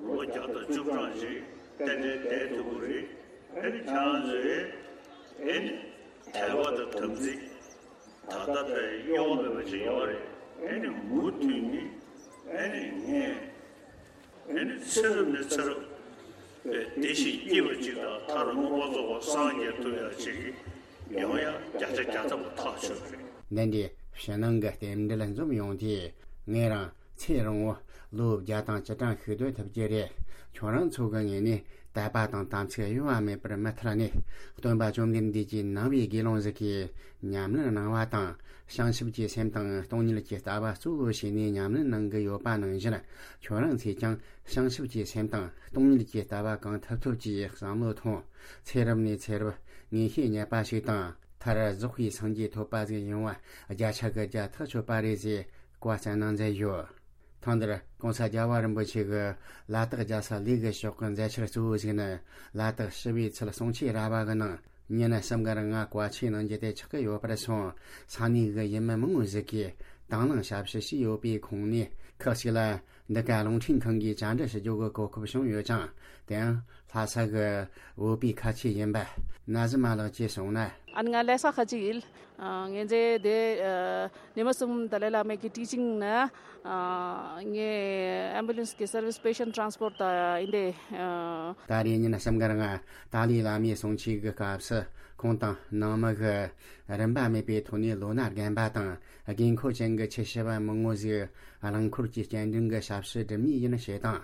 ལོ་བརྒྱ་དང་བཅུ་གྲངས་ཤིག་རྟེན་འབྲེལ་བསྡད་ཐུབ་ཀྱི་རེད། ཨ་ནི་ཁྱེད་རང་ཚོས་ཨ་ནི་དད་པ་དང་དམ་ཚིག་ད་ལྟ་ལྟར་གཡོ་མེད་པ་ཅིག་ཡོད་རེད། ཨ་ནི་མུ་མཐུད་ནས་ཨ་ནི་ངས་ཨ་ནི་ཚེ་རབས་ནས་ཚེ་རབས་བདེ་ཞིང་སྐྱིད་པ་ཅིག་དང་མཐར་མངོན་པར་རྫོགས་པར་སངས་རྒྱས་ཐུབ་ཡ་ཅིག་ཡོང་ཡ་བརྒྱ་ཆ་བརྒྱ་ཐམ་པ་ཐག་ཆོད་རེད། འདི་འདྲའི་ཕྱི་ནང་གི་རྟེན་འབྲེལ་འཛོམས་ཡོང་དུས་ངེད་རང་ཚེ་རིང་བོ་ལོ་བརྒྱ་དང་བཅུ་གྲངས་ཤིག་སྡོད་ཐུབ་ཀྱི་རེད། ཁྱོད་རང་ཚོ་གི་ངོས་ནས་དད་པ་དང་དམ་ཚིག་གཡོ་བ་མེད་པར་མུ་མཐུད་ནས་སྟོན་པ་བཅོམ་ལྡན་འདས་ཀྱི་ནང་པའི་དགེ་སློང་ཟིག་གིས་ཉམས་ལེན་གནང་བ་དང་། བྱང་ཆུབ་ཀྱི་སེམས་དང་སྟོང་ཉིད་ཀྱི་ལྟ་བ་གཙོ་བོ་བྱས་ནས་ཉམས་ལེན་གནང་གི་ཡོད་པ་ནང་བཞིན། ཁྱོད་རང་ཚོས་ཀྱང་བྱང་ཆུབ་ཀྱི་སེམས་དང་སྟོང་ཉིད་ཀྱི་ལྟ་བ་གང་ཐུབ་ཐུབ་ཀྱིས་བསམ་བློ་ཐོངས། ཚེ་རབས་ནས་ཚེ་རབས་ངེས་ཤེས་རྙེད་པ་ཞིག་དང་། མཐར་རྫོགས་པའི་སངས་རྒྱས་ཐོབ་པ་ཟིག་ཡོང་བ་བརྒྱ་ཆ་གི་བརྒྱ་ཐག་ཆོད་པ་རེད་ཅེས་བཀའ་སྩལ་གནང་མཛད་ཡོད། ཐེངས་འདིར་གོང་ས་རྒྱལ་བ་རིན་པོ་ཆེ་གིས་ལ་དྭགས་རྒྱལ་ས་ལས་ཀྱི་ཕྱོགས་ཀྱི་མཛད་འཆར་གཙོ་བོ་ཞིག་ནི། ལ་དྭགས་ཞི་བའི་ཚལ་གསུང་ཆོས་ར་བ་གི་ནང་ཉིན་གསུམ་གི་རིང་ང་བཀའ་ཆོས་གནང་རྒྱུ་དེ་ཆགས་ཀྱི་ཡོད་པར་སོང་། ས་གནས་ཀྱི་ཡུལ་མི་མང་བོ་ཞིག་གིས་དང་བླངས་ཞབས་ཞུ་བྱས་ཡོད་པའི་ཁོངས་ནས། ཁག་ཅིག་ལ་འདི་ག་རླུང་འཕྲིན་ཁང་གིས་བཅར་འདྲི་ཞུ་རྒྱུ་གི་གོ་སྐབས་བྱུང་ཡོད་ཅིང་། དེའང་ལྷ་ས་གི་བོད་པའི་ཁ་ཆེ་ཡིན་པ་ན་ཟི་མ་ལགས་ཀྱིས་གསུངས་ན། ཨ་ནི་ང་ལྷ་ས་ཁ་ཆེ་ཡིན། ཨ། ངས་འདི་འདི་ཨ། ཉི་མ་གསུམ་ཏཱ་ལའི་བླ་མའི་གི་ཊི་ཅིང་ནི། ཨ། ངས་ཨེམ་བུ་ལན་སི་གི་སར་བིས་པེ་ཤན་ཊི་རན་སི་པོར་ཊི་ད་ཡིན་ཏེ། ཨ། ད་རེས་ཉིན་གསུམ་གི་རིང་ཏཱ་ལའི་བླ་མའི་གསུང་ཆོས་ཀྱི་སྐབས་སུ་ཁོང་དང་ནང་མི་གིས་རིན་པ་མེད་པའི་ཐོག་ནས་ལོ་ན་རྒན་པ་དང་དགོས་མཁོ་ཅན་གྱི་ཆེ་ཤོས་པ་མང་བོ་ཞིག་རླངས་འཁོར་གྱི་སྐྱེལ་འདྲེན་གྱི་ཞབས་ཞུ་སྒྲུབ་མུས་ཡིན་ཞེས་དང་།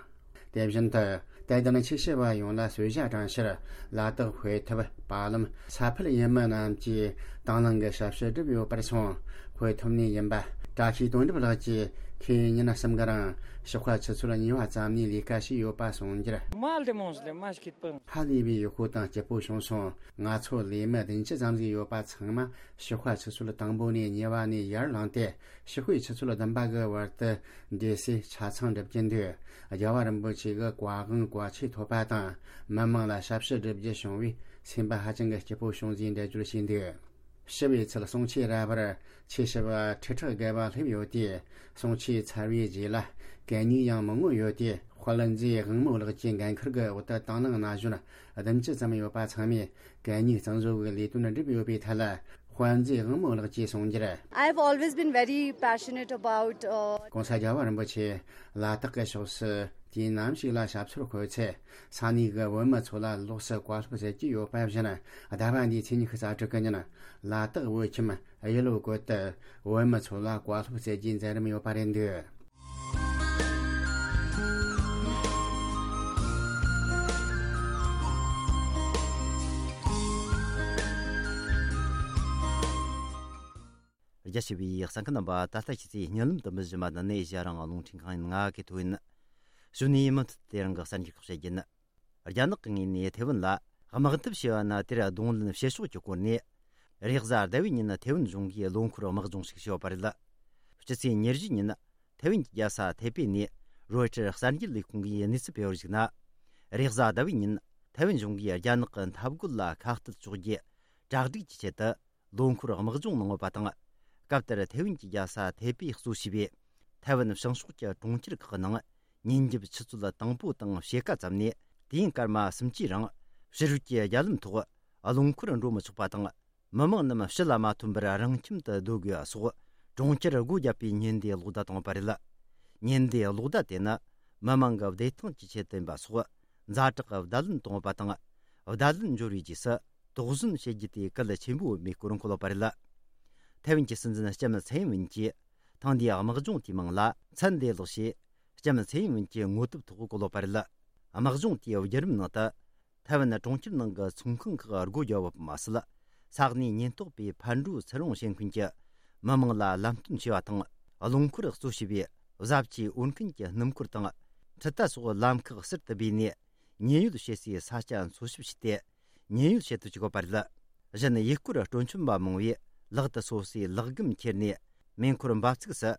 དེ་བཞིན་དུ་དད་ལྡན་ཆེ་ཤོས་པ་ཡོངས་ལ་གསོལ་ཇ་དྲངས་ཕྱིར་ལ་དྭགས་དཔེ་ཐུབ་པ་ལམ་ས་ཕུད་ཡུལ་མི་རྣམས་ཀྱིས་དང་བླངས་ཀྱི་ཞབས་ཞུ་བསྒྲུབས་ཡོད་པར་སོང་། དཔེ་ཐུབ་ནས་ཡིན་པ་བཀྲ་ཤིས་དོན་གྲུབ་ལགས་ཀྱིས་ཁོས་ཉིན་གསུམ་གི་རིང་ཞོགས་ཁ་ཆུ་ཚོད་གཉིས་པ་ཙམ་ནས་ལས་ཀ་བྱས་ཡོད་པ་གསུངས་རྒྱུར། མ་ལྡེ་མོང་ལེ་མ་ཤི་ཁིད་པང་། ཧ་ལས་པའི་ཡག་པོ་དང་སྐྱིད་པོ་བྱུང་སོང་། ང་ཚོ་ལས་མི་བདུན་ཅུ་ཙམ་ཞིག་ཡོད་པ་ཚང་མ་ཞོགས་ཁ་ཆུ་ཚོད་དང་པོ་ནས་གཉིས་པ་ནས་ཡར་ལངས་ཏེ། ཞོགས་པའི་ཆུ་ཚོད་བདུན་པ་གི་བར་དུ་འདི་སའི་ཆ་ཚང་སྒྲུབ་ཀྱིན་འདུག་རྒྱལ་བ་རིན་པོ་ཆེ་གི་བཀའ་དབང་བཀའ་ཆོས་ཐོབ་པ་དང་། མི་མང་ལ་ཞབས་ཞུ་སྒྲུབ་རྒྱུ་བྱུང་བས་སེམས་པ་ཧ་ཅང་གི་སྐྱིད་པོ་བྱུང་ཞེས་འགྲེལ་བརྗོད་བྱས་འདུག་ཞི་བའི་ཚལ་གསུང་ཆོས་ར་བར་ཆོས་ཞུ་བ་ཁྲི་ཕྲག་བརྒལ་བ་སླེབས་ཡོད་དེ། གསུང་ཆོས་ཚར་བའི་རྗེས་ལ་གད་སྙིགས་ཡང་མང་བོ་ཡོད་དེ། དཔལ་མཛོད་དབང་མོ་ལགས་ཀྱི་འགན་ཁུར་གྱི་འོག་ཏུ་དང་བླངས་ན་གཞོན་བདུན་ཅུ་ཙམ་ཡོད་པ་ཚང་མས་གད་སྙིགས་གཙང་བཟོ་གི་ལས་དོན་བསྒྲུབས་ཡོད་པའི་ཐད་ལ། དཔལ་མཛོད་དབང་མོ་ལགས་ཀྱིས་གསུངས་རྒྱུར། I've always been very passionate about, uh, གོང་ས་རྒྱལ་བ་རིན་པོ་ཆེ་ལ་དྭགས་ཀྱི་ཕྱོགས་སུ་དུས་ནམ་ཞིག་ལ་ཞབས་སོར་འཁོད་ཚེ། ས་གནས་ཀྱི་བོད་མི་ཚོ་ལ་ལོགས་སུ་བཀའ་སློབ་སྩལ་གྱི་ཡོད་པ་བཞིན། ཟླ་བ་འདིའི་ཚེས་ཉི་ཤུ་རྩ་དྲུག་གི་ཉིན་ལ་དྭགས་བོད་ཁྱིམ་གཡུ་ལོ་སྐོར་དུ་བོད་མི་ཚོ་ལ་བཀའ་སློབ་སྩལ་རྒྱུའི་མཛད་རིམ་ཡོད་པ་རེད་འདུག་རྒྱ་ཆེ་བའི་གསན་མཁན་རྣམ་པ། ད་ལྟ་ཁྱེད་ཚོས་བརྙན་ལམ་དུ་མི་བཞིན་པ་འདི་ནས་ཨེ་ཤ་ཡ་རང་དབང་རླུང་འཕྲིན་ཁང་ཡིན། ང་གི་ཐོ་ཡིན། གཞུག་ནས་མུ་མཐུད་དེ་རང་གི་གསར་འགྱུར་ཁག་བཤད་རྒྱུ་ཡིན། རྒྱ་ནག་གི་ངོས་ནས་ཐེ་ཝན་ལ་དམག་འཐབ་བྱས་པ་ན། དེར་གདོང་ལེན་བྱེད་ཕྱོགས་ཀྱི་སྐོར་ནས། རེས་གཟའ་ཟླ་བའི་ཉིན་ཐེ་ཝན་གཞུང་གིས་ལོ་འཁོར་དམག་སྦྱོང་ཞིག་བྱས་པ་རེད། སྤྱི་ཚེས་ཉེར་བཞི་ཉིན་ཐེ་ཝན་གྱི་རྒྱལ་ས་ཐེ་པེ་ནས་རོའི་ཊར་གསར་འགྱུར་ལས་ཁུངས་ཀྱིས་གནས་ཚུལ་སྤེལ་བར་གཞིགས་ན། རེས་གཟའ་ཟླ་བའི་ཉིན་ཐེ་ཝན་གཞུང་གིས་རྒྱ་ནག་གི་འཐབ་རྒོལ་ལ་ཁ་གཏད་གཅོག་རྒྱུ་གྲ་སྒྲིག་གི་ཆེད་དུ། ལོ་འཁོར་དམག་སྦྱོང་གནང་ཡོད་པ་དང་། སྐབས་དེར་ཐེ་ཝན་གྱི་རྒྱལ་ས་ཐེ་པེ་གཙོ་བྱས་པའི་ཐེ་ཝན་བྱང་ཕྱོགས་ཀྱི་གྲོང་ཁྱེར་ཁག་གི་ནང་ཉིན་རྒྱབ་ཆུ་ཚོད་དང་པོ་དང་ཕྱེད་ཀ་ཙམ་ནས་དུས་ཡུན་སྐར་མ་གསུམ་གྱི་རིང་ཕྱི་རོལ་གྱི་རྒྱ་ལམ་ཐོག་རླངས་འཁོར་འགྲོ་མི་ཆོག་པ་དང་། མི་མང་རྣམས་ཕྱི་ལ་མ་ཐོན་པར་རང་ཁྱིམ་དུ་སྡོད་དགོས་པ་སོགས་ གྲོང་ཁྱེར་སྒོ་བརྒྱབ་པའི་ཉེན་བརྡའི་གློག་བརྡ་བཏང་བ་རེད། ཉེན་བརྡའི་གློག་བརྡ་དེ་ནི་མི་མང་གི་བདེ་ཐང་གི་ཆེད་དུ་ཡིན་པ་སོགས་ཛ་དྲག་གི་བརྡ་ལན་བཏང་བ་དང་། བརྡ་ལན་འབྱོར་བའི་རྗེས་སུ་དོགས་ཟོན་བྱེད་རྒྱུ་དེ་གལ་ཆེན་པོ་ཡིན་པའི་སྐོར་འཁོད་ཡོད་པ་རེད། ཐའེ་ཝན་གྱི་སྲིད་འཛིན་ལྕམ་ཚའེ་ཡིན་ཝིན་གྱིས་ཐེངས་འདིའི་དམག་སྦྱོང་དེའི་མིང་ལ་ཚན་བདེ་ལེགས་ཞེས་ལྕམ་ཚའེ་ཡིན་ཝིན་གྱི་ངོ་དེབ་ཐོག་བཀོད་ཡོད་པ་རེད། དམག་སྦྱོང་དེའི་བརྒྱུད་རིམ་ནང་དུ། ཐའེ་ཝན་གྲོང་ཁྱེར་ནང་གི་ཚོང་ཁང་ཁག་སྒོ་བརྒྱབ་པ་མ་ཟད། ས་གནས་ཉེན་རྟོག་པས་ཕར་འགྲོ་ཚུར་འོང་བྱེད་མཁན་གྱི་མི་མང་ལ་ལམ་སྟོན་བྱས་པ་དང་། རླངས་འཁོར་གཙོ་བྱས་པའི་བཟའ་བཅའི་འོར་མཁན་གྱི་སྣུམ་འཁོར་དང་། འཕྲུལ་རྟ་སོགས་ལམ་ཁག་གསར་དུ་སྦས་ནས་ཉེན་གཡོལ་བྱེད་སའི་ས་ཆ་འཚོལ་ཞིབ་བྱས་ཏེ། ཉེན་གཡོལ་བྱེད་དུ་བཅུག་པ་རེད། གཞན་ཡུལ་སྐོར་སྤྲོ་འཆམ་པ་མང་བོས་ལག་ཏུ་སོ་སོའི་ལག་སྒམ་ཁྱེར་ནས་མེ་འཁོར་འབབ་ཚུགས་སུ་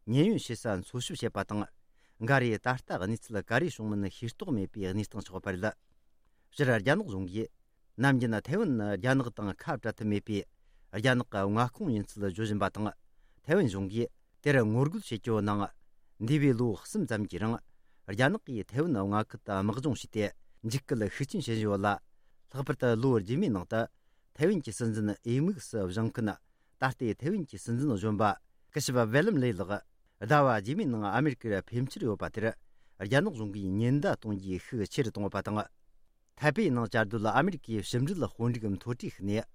ཉེན་གཡོལ་བྱེད་ས་འཚོལ་ཞིབ་བྱེད་པ་དང་། འགའ་རེས་ད་ལྟ་གནས་ཚུལ་ག་རེ་བྱུང་མིན་ཤེས་རྟོགས་མེད་པའི་གནས་སྟངས་ཆགས་པ་རེད། སྤྱིར་རྒྱ་ནག་གཞུང་གིས་ནམ་རྒྱུན་ཐའེ་ཝན་ནི་རྒྱ་ནག་དང་ཁ་བྲལ་ཐབས་མེད་པའི་རྒྱ་ནག་གི་མངའ་ཁོངས་ཡིན་ཚུལ་བརྗོད་བཞིན་པ་དང་། ཐའེ་ཝན་གཞུང་གིས་དེར་ངོ་རྒོལ་བྱེད་རྒྱུ་ནང་། འདས་པའི་ལོ་གསུམ་ཙམ་གྱི་རིང་རྒྱ་ནག་གིས་ཐའེ་ཝན་མངའ་ཁུལ་དུ་དམག་སྦྱོང་བྱས་ཏེ་འཇིགས་སྐུལ་ཤུགས་ཆེན་བྱེད་བཞིན་ཡོད་ལ། ལྷག་པར་དུ་ལོ་རྗེས་མའི་ནང་དུ་ཐའེ་ཝན་གྱི་སྲིད་འཛིན་འོས་དམིགས་སུ་བཞེངས་མཁན། ད་ལྟའི་ཐའེ་ཝན་གྱི་སྲིད་འཛིན་གཞོན་པ་སྐུ་ཞབས་ཝེ་ལམ་ལེ་ལགས་ཟླ་བ་རྗེས་མའི་ནང་ཨ་མེ་རི་ཀར་ཕེབས་འཆར་ཡོད་པ་དེར་རྒྱ་ནག་གཞུང་གིས་ཉེན་བརྡ་གཏོང་རྒྱུའི་ཤུགས་ཆེ་རུ་བཏང་བ་དང་། ཐའེ་པེ་ནང་བཅའ་སྡོད་ཨ་མེ་རི་ཀའི་ཕྱི་འབྲེལ་དཔོན་རིགས་མཐོ་གྲས་ཤིག་ནས།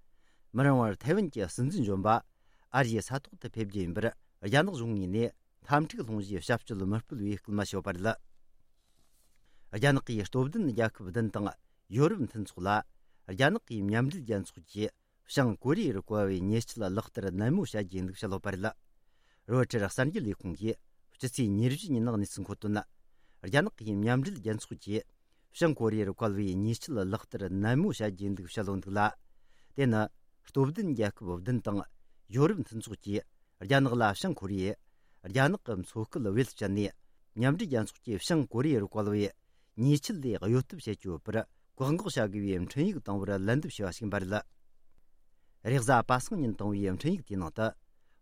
མི་རིང་བར་ཐའེ་ཝན་གྱི་སྲིད་འཛིན་གཞོན་པ་ཨ་རིའི་ས་ཐོག་ཏུ་ཕེབས་རྒྱུ་ཡིན་པར་རྒྱ་ནག་གཞུང་ངོས་ནས་འཐབ་འཁྲུག་སློང་རྒྱུའི་བྱ་སྤྱོད་མི་སྤེལ་བའི་སྐུལ་མ་བྱས་ཡོད་པ་རེད། རྒྱ་ནག་གིས་སྟོབས་ལྡན་རྒྱལ་ཁབ་བདུན་དང་ཡོ་རོབ་མཐུན་ཚོགས་ལ་རྒྱ་ནག་གིས་མཉམ་འབྲེལ་རྒྱལ་ཚོགས་ཀྱི་བྱང་ཀོ་རི་ཡར་བཀལ་བའི་ཉེས་ཆད་ལག་བསྟར་ནན་མོ་བྱ་རྒྱུའི་ལུགས་བཤད་ཡོད་པ་རེད། རོའི་ཊར་གསར་འགྱུར་ལས་ཁུངས་ཀྱིས་སྤྱི་ཚེས་ཉེར་བཞི་ཉིན་གནས་ཚུལ་འཁོད་དོན། རྒྱ་ནག་གིས་མཉམ་འབྲེལ་རྒྱལ་ཚོགས་ཀྱིས་བྱང་ཀོ་རི་ཡར་བཀལ་བའི་ཉེས་ཆད་ལག་བསྟར་ནན་མོ་བྱ་རྒྱུའི་ལུགས་བཤད་ཡོད་འདུག་ལ། དེ་ནི་སྟོབས་ལྡན་རྒྱལ་ཁབ་བདུན་དང་ཡོ་རོབ་མཐུན་ཚོགས་ཀྱིས་རྒྱ་ནག་ལ་བྱང་ཀོ་རི་ཡས་རྒྱ་ནག་གི་མཚོ་ཁུལ་བེད་སྤྱད་ནས་མཉམ་འབྲེལ་རྒྱལ་ཚོགས་ཀྱིས་བྱང་ཀོ་རི་ཡར་བཀལ་བའི་ཉེས་ཆད་ལས་གཡོལ་ཐབས་བྱེད་ཀྱི་ཡོད་པར་བཀག་འགོག་བྱ་དགོས་པའི་འཕྲིན་ཡིག་བཏང་བར་ལན་འདེབས་བྱས་པ་ཞིག་ཡིན་པ་རེད། རེས་གཟའ་པ་སངས་ཉིན་བཏང་བའི་འཕྲིན་ཡིག་དེའི་ནང་དུ།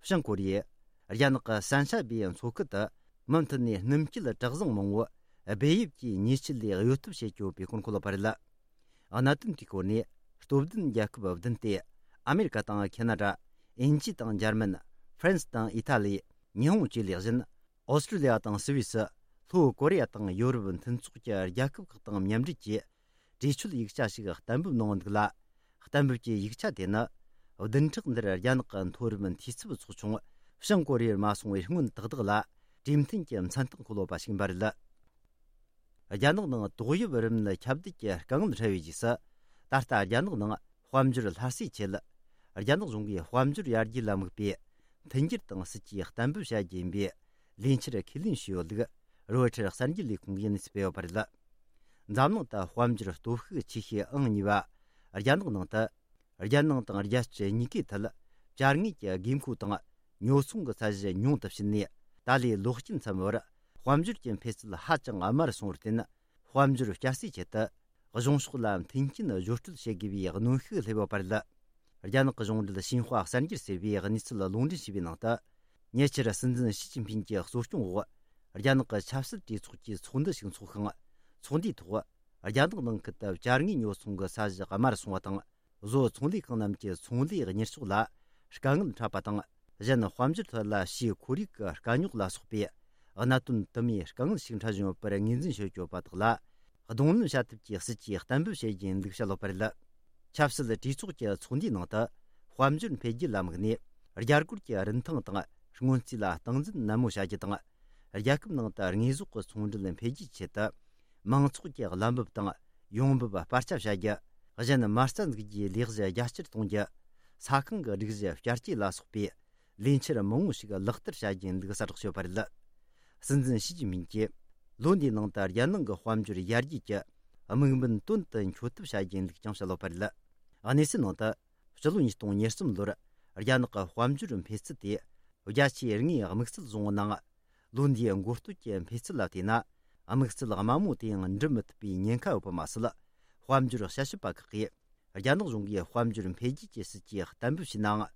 བྱང་ཀོ་རི་ཡས་རྒྱ་ནག་གི་སན་ཤ་བའི་མཚོ་ཁུལ་དུ་མུ་མཐུད་ནས་སྣུམ་སྐྱེལ་གྲུ་གཟིངས་མང་བོ་སྦས་ཡུལ་གྱི་ཉེས་ཆད་ལས་གཡོལ་ཐབས་བྱེད་ཀྱི་ཡོད་པའི་སྐོར་འཁོད་ཡོད་པ་རེད། གནད་དོན་དེའི་སྐོར་ནས་སྟོབས་ལྡན་རྒྱལ་ཁབ་བདུན་སྟེ། ཨ་མེ་རི་ཀ་དང་ཁེ་ན་ཌ། དབྱིན་ཇི་དང་འཇར་མན། ཧྥ་རན་སི་དང་ཨི་ཐ་ལི། ཉི་ཧོང་བཅས་ལས་གཞན། ཨོ་སི་ཀྲི་ལི་ཡ་དང་སུད་སི། ལྷོ་ཀོ་རི་ཡ་དང་ཡོ་རོབ་མཐུན་ཚོགས་ཀྱི་རྒྱལ་ཁབ་ཁག་དང་མཉམ་འབྲེལ་གྱིས། གྲོས་ཆོད་ཡིག་ཆ་ཞིག་གཏན་འབེབས་གནང་འདུག་ལ། གཏན་འབེབས་ཀྱི་ཡིག་ཆ་དེ་ནི། བདུན་ཕྲག་འདིར་རྒྱ་ནག་གི་མཐོ་རིམ་འཐུས་ཚབ་ཚོགས་ཆུང་བྱང་ཀོ་རི་ཡར་མ་སོང་བའི་སྔོན་ཏག་ཏག་ལ། གྲོས་མཐུན་གྱི་མཚན་རྟགས་འཁོད་ཡོད་པ་ཞིག་ཡིན་པ་རེད། རྒྱ་ནག་ནང་ཏོག་དབྱིབས་རིམས་ནད་ཁྱབ་གདལ་གྱི་དཀའ་ངལ་འཕྲད་པའི་རྗེས་སུ། ད་ལྟ་རྒྱ་ནག་ནང་དཔལ་འབྱོར་སླར་གསོའི་ཆེད། རྒྱ་ནག་གཞུང་གིས་དཔལ་འབྱོར་ཡར་རྒྱས་ལ་དམིགས་པའི་མཐུན་འགྱུར་དང་སྲིད་ཇུས་གཏན་འབེབས་བྱ་རྒྱུ་ཡིན་པའི་ལས་འཆར་ཁས་ལེན་བྱས་ཡོད་ལུགས་རོའི་ཊར་གསར་འགྱུར་ལས་ཁུངས་ཀྱིས་གནས་ཚུལ་སྤེལ་ཡོད་པ་རེད། འཛམ་གླིང་དུ་དཔལ་འབྱོར་སྟོབས་ཤུགས་ཆེ་ཤོས་ཨང་གཉིས་པ་རྒྱ་ནག་ནང་དུ། རྒྱལ་ནང་དང་རྒྱལ་སྤྱི་གཉིས་ཀའི་ཐད་བཅའ་དངོས་ཀྱི་དགོས་མཁོ་དང་ཉོ་ཚོང་གི་ཚད་གཞི་ཉུང་དུ་ཕྱིན་ནས། ད་ལོའི་ལོ་དཀྱིལ་མཚམས་བར་དཔལ་འབྱོར་གྱི་འཕེལ་ཚད་ཧ་ཅང་དམའ་རུ་སོང་བར་བརྟེན། དཔལ་འབྱོར་བསྐྱར་གསོའི་ཆེད་དུ་གཞུང་ཕྱོགས་ལ་མཐུན་རྐྱེན་བཟོ་སྤྲོད་བྱེད་དགོས་པའི་གནོན་ཤུགས་སླེབས་ཡོད་པ་རེད། རྒྱ་ནག་གི་གཞུང་འབྲེལ་ཤིན་ཧྭ་གསར་འགྱུར་ཟེར་བས་གནས་ཚུལ་ལ་ལུང་འདྲེན་བྱས་པའི་ནང་དུ། ཉེ་ཆར་སྲིད་འཛིན་ཞི་ཅིན་ཕིན་གྱི་གཙོ་སྐྱོང་འོག་རྒྱ་ནག་གི་ཆབ་སྲིད་གྲོས་ཚོགས་ཀྱི་ཚོགས་འདུ་ཞིག་འཚོགས་ཤིང་། ཚོགས་འདུའི་ཐོག་རྒྱ་ནག་ནང་ཁུལ་དུ་བཅའ་དངོས་ཉོ་ཚོང་གི་ཚད་གཞི་དམའ་རུ་སོང་བ་དང་། བཟོ་ཚོང་ལས་ཁང་རྣམས་ཀྱི་ཚོང་ལས་གཉེར་ཕྱོགས་ལ་དཀའ་ངལ་འཕྲད་པ་དང་། གཞན་དཔལ་འབྱོར་ཐད་ལ་ཕྱིའི་ཁོར་ཡུག་གི་དཀའ་རྙོག་ལ་སོགས་པའི་གནད་དོན་དུ་མའི་དཀའ་ངལ་ཞིག་འཕྲད་བཞིན་ཡོད་པར་ངོས་འཛིན་བྱེད་ཀྱི་ཡོད་པ་དག་ལ། གདོང་ལེན་བྱ་ཐབས་ཀྱི་སྲིད་ཇུས་གཏན་འབེབས་བྱེད་རྒྱུ་ཡིན་ལུགས་བཤད་ཡོད་པ་རེད། ཆབ་སྲིད་གྲོས་ཚོགས་ཀྱི་ཚོགས་འདུའི་ནང་དུ། དཔལ་འབྱོར་འཕེལ་རྒྱས་ལ་དམིགས་ནས། རྒྱ་སྒོར་གྱི་རིན་ཐང་དང་སྔོན་རྩིས་ལ་སྟངས་འཛིན་ནན་མོ་བྱ་རྒྱུ་དང་། རྒྱལ་ཁབ་ནང་དུ་དངོས་ཟོག་གི་ཚོང་འབྲེལ་འཕེལ་རྒྱས་ཆེད་དུ། མང་ཚོགས་ཀྱི་བླ་འབབ་དང་ཡོང་འབབ་སྤར་ཆ་བྱ་རྒྱུ། གཞན་མ་རྩ་འཛུགས་རྒྱུའི་ལས་གཞི་རྒྱ་ཆེར་གཏོང་རྒྱུ། ས་ཁང་གི་སྒྲིག་གཞི་བསྐྱར་བཅོས་ལ་སོགས་པའི་ལས་འཆར་མང་བོ་ཞིག་ལག་བསྟར་བྱ་རྒྱུ་ཡིན་ལུགས་གསལ་བསྒྲགས་བྱས་ཡོད་པ་རེད། སྲིད་འཛིན་ཞི་ཅིན་ཕིན་གྱིས་ལོ་འདིའི་ནང་དུ་རྒྱལ་ནང་གི་དཔལ་འབྱོར་ཡར་རྒྱས་ཀྱི་དམིགས་འབེན་དོན་དུ་འཁྱོལ་ཐབས་བྱ་རྒྱུ་ཡིན་ལུགས་ཀྱང་བཤད་ཡོད་པ་རེད། གནས་ཚུལ་ནང་དུ། སྤྱི་ལོ་ཉིས་སྟོང་ཉེར་གསུམ་ལོར་རྒྱ་ནག་གི་དཔལ་འབྱོར་འཕེལ་ཚད་དེ་བརྒྱ་ཆའི་ལྔའི་དམིགས་བསལ་བཟུང་བའི་ནང་། ལོ་འདིའི་འགོ་སྟོད་ཀྱི་འཕེལ་ཚད་ལ་བལྟས་ན། དམིགས་བསལ་དམའ་མོ་དེའང་འགྲུབ་མི་ཐུབ་པའི་ཉེན་ཁ་ཡོད་པ་མ་ཟད། དཔལ་འབྱོར་དཔྱད་ཞིབ་པ་ཁག་གིས། རྒྱ་ནག་གཞུང་གིས་དཔལ་འབྱོར་འཕེལ་རྒྱས་ཀྱི་སྲིད་ཇུས་གཏན་འབེབས་བྱས་ནའང་།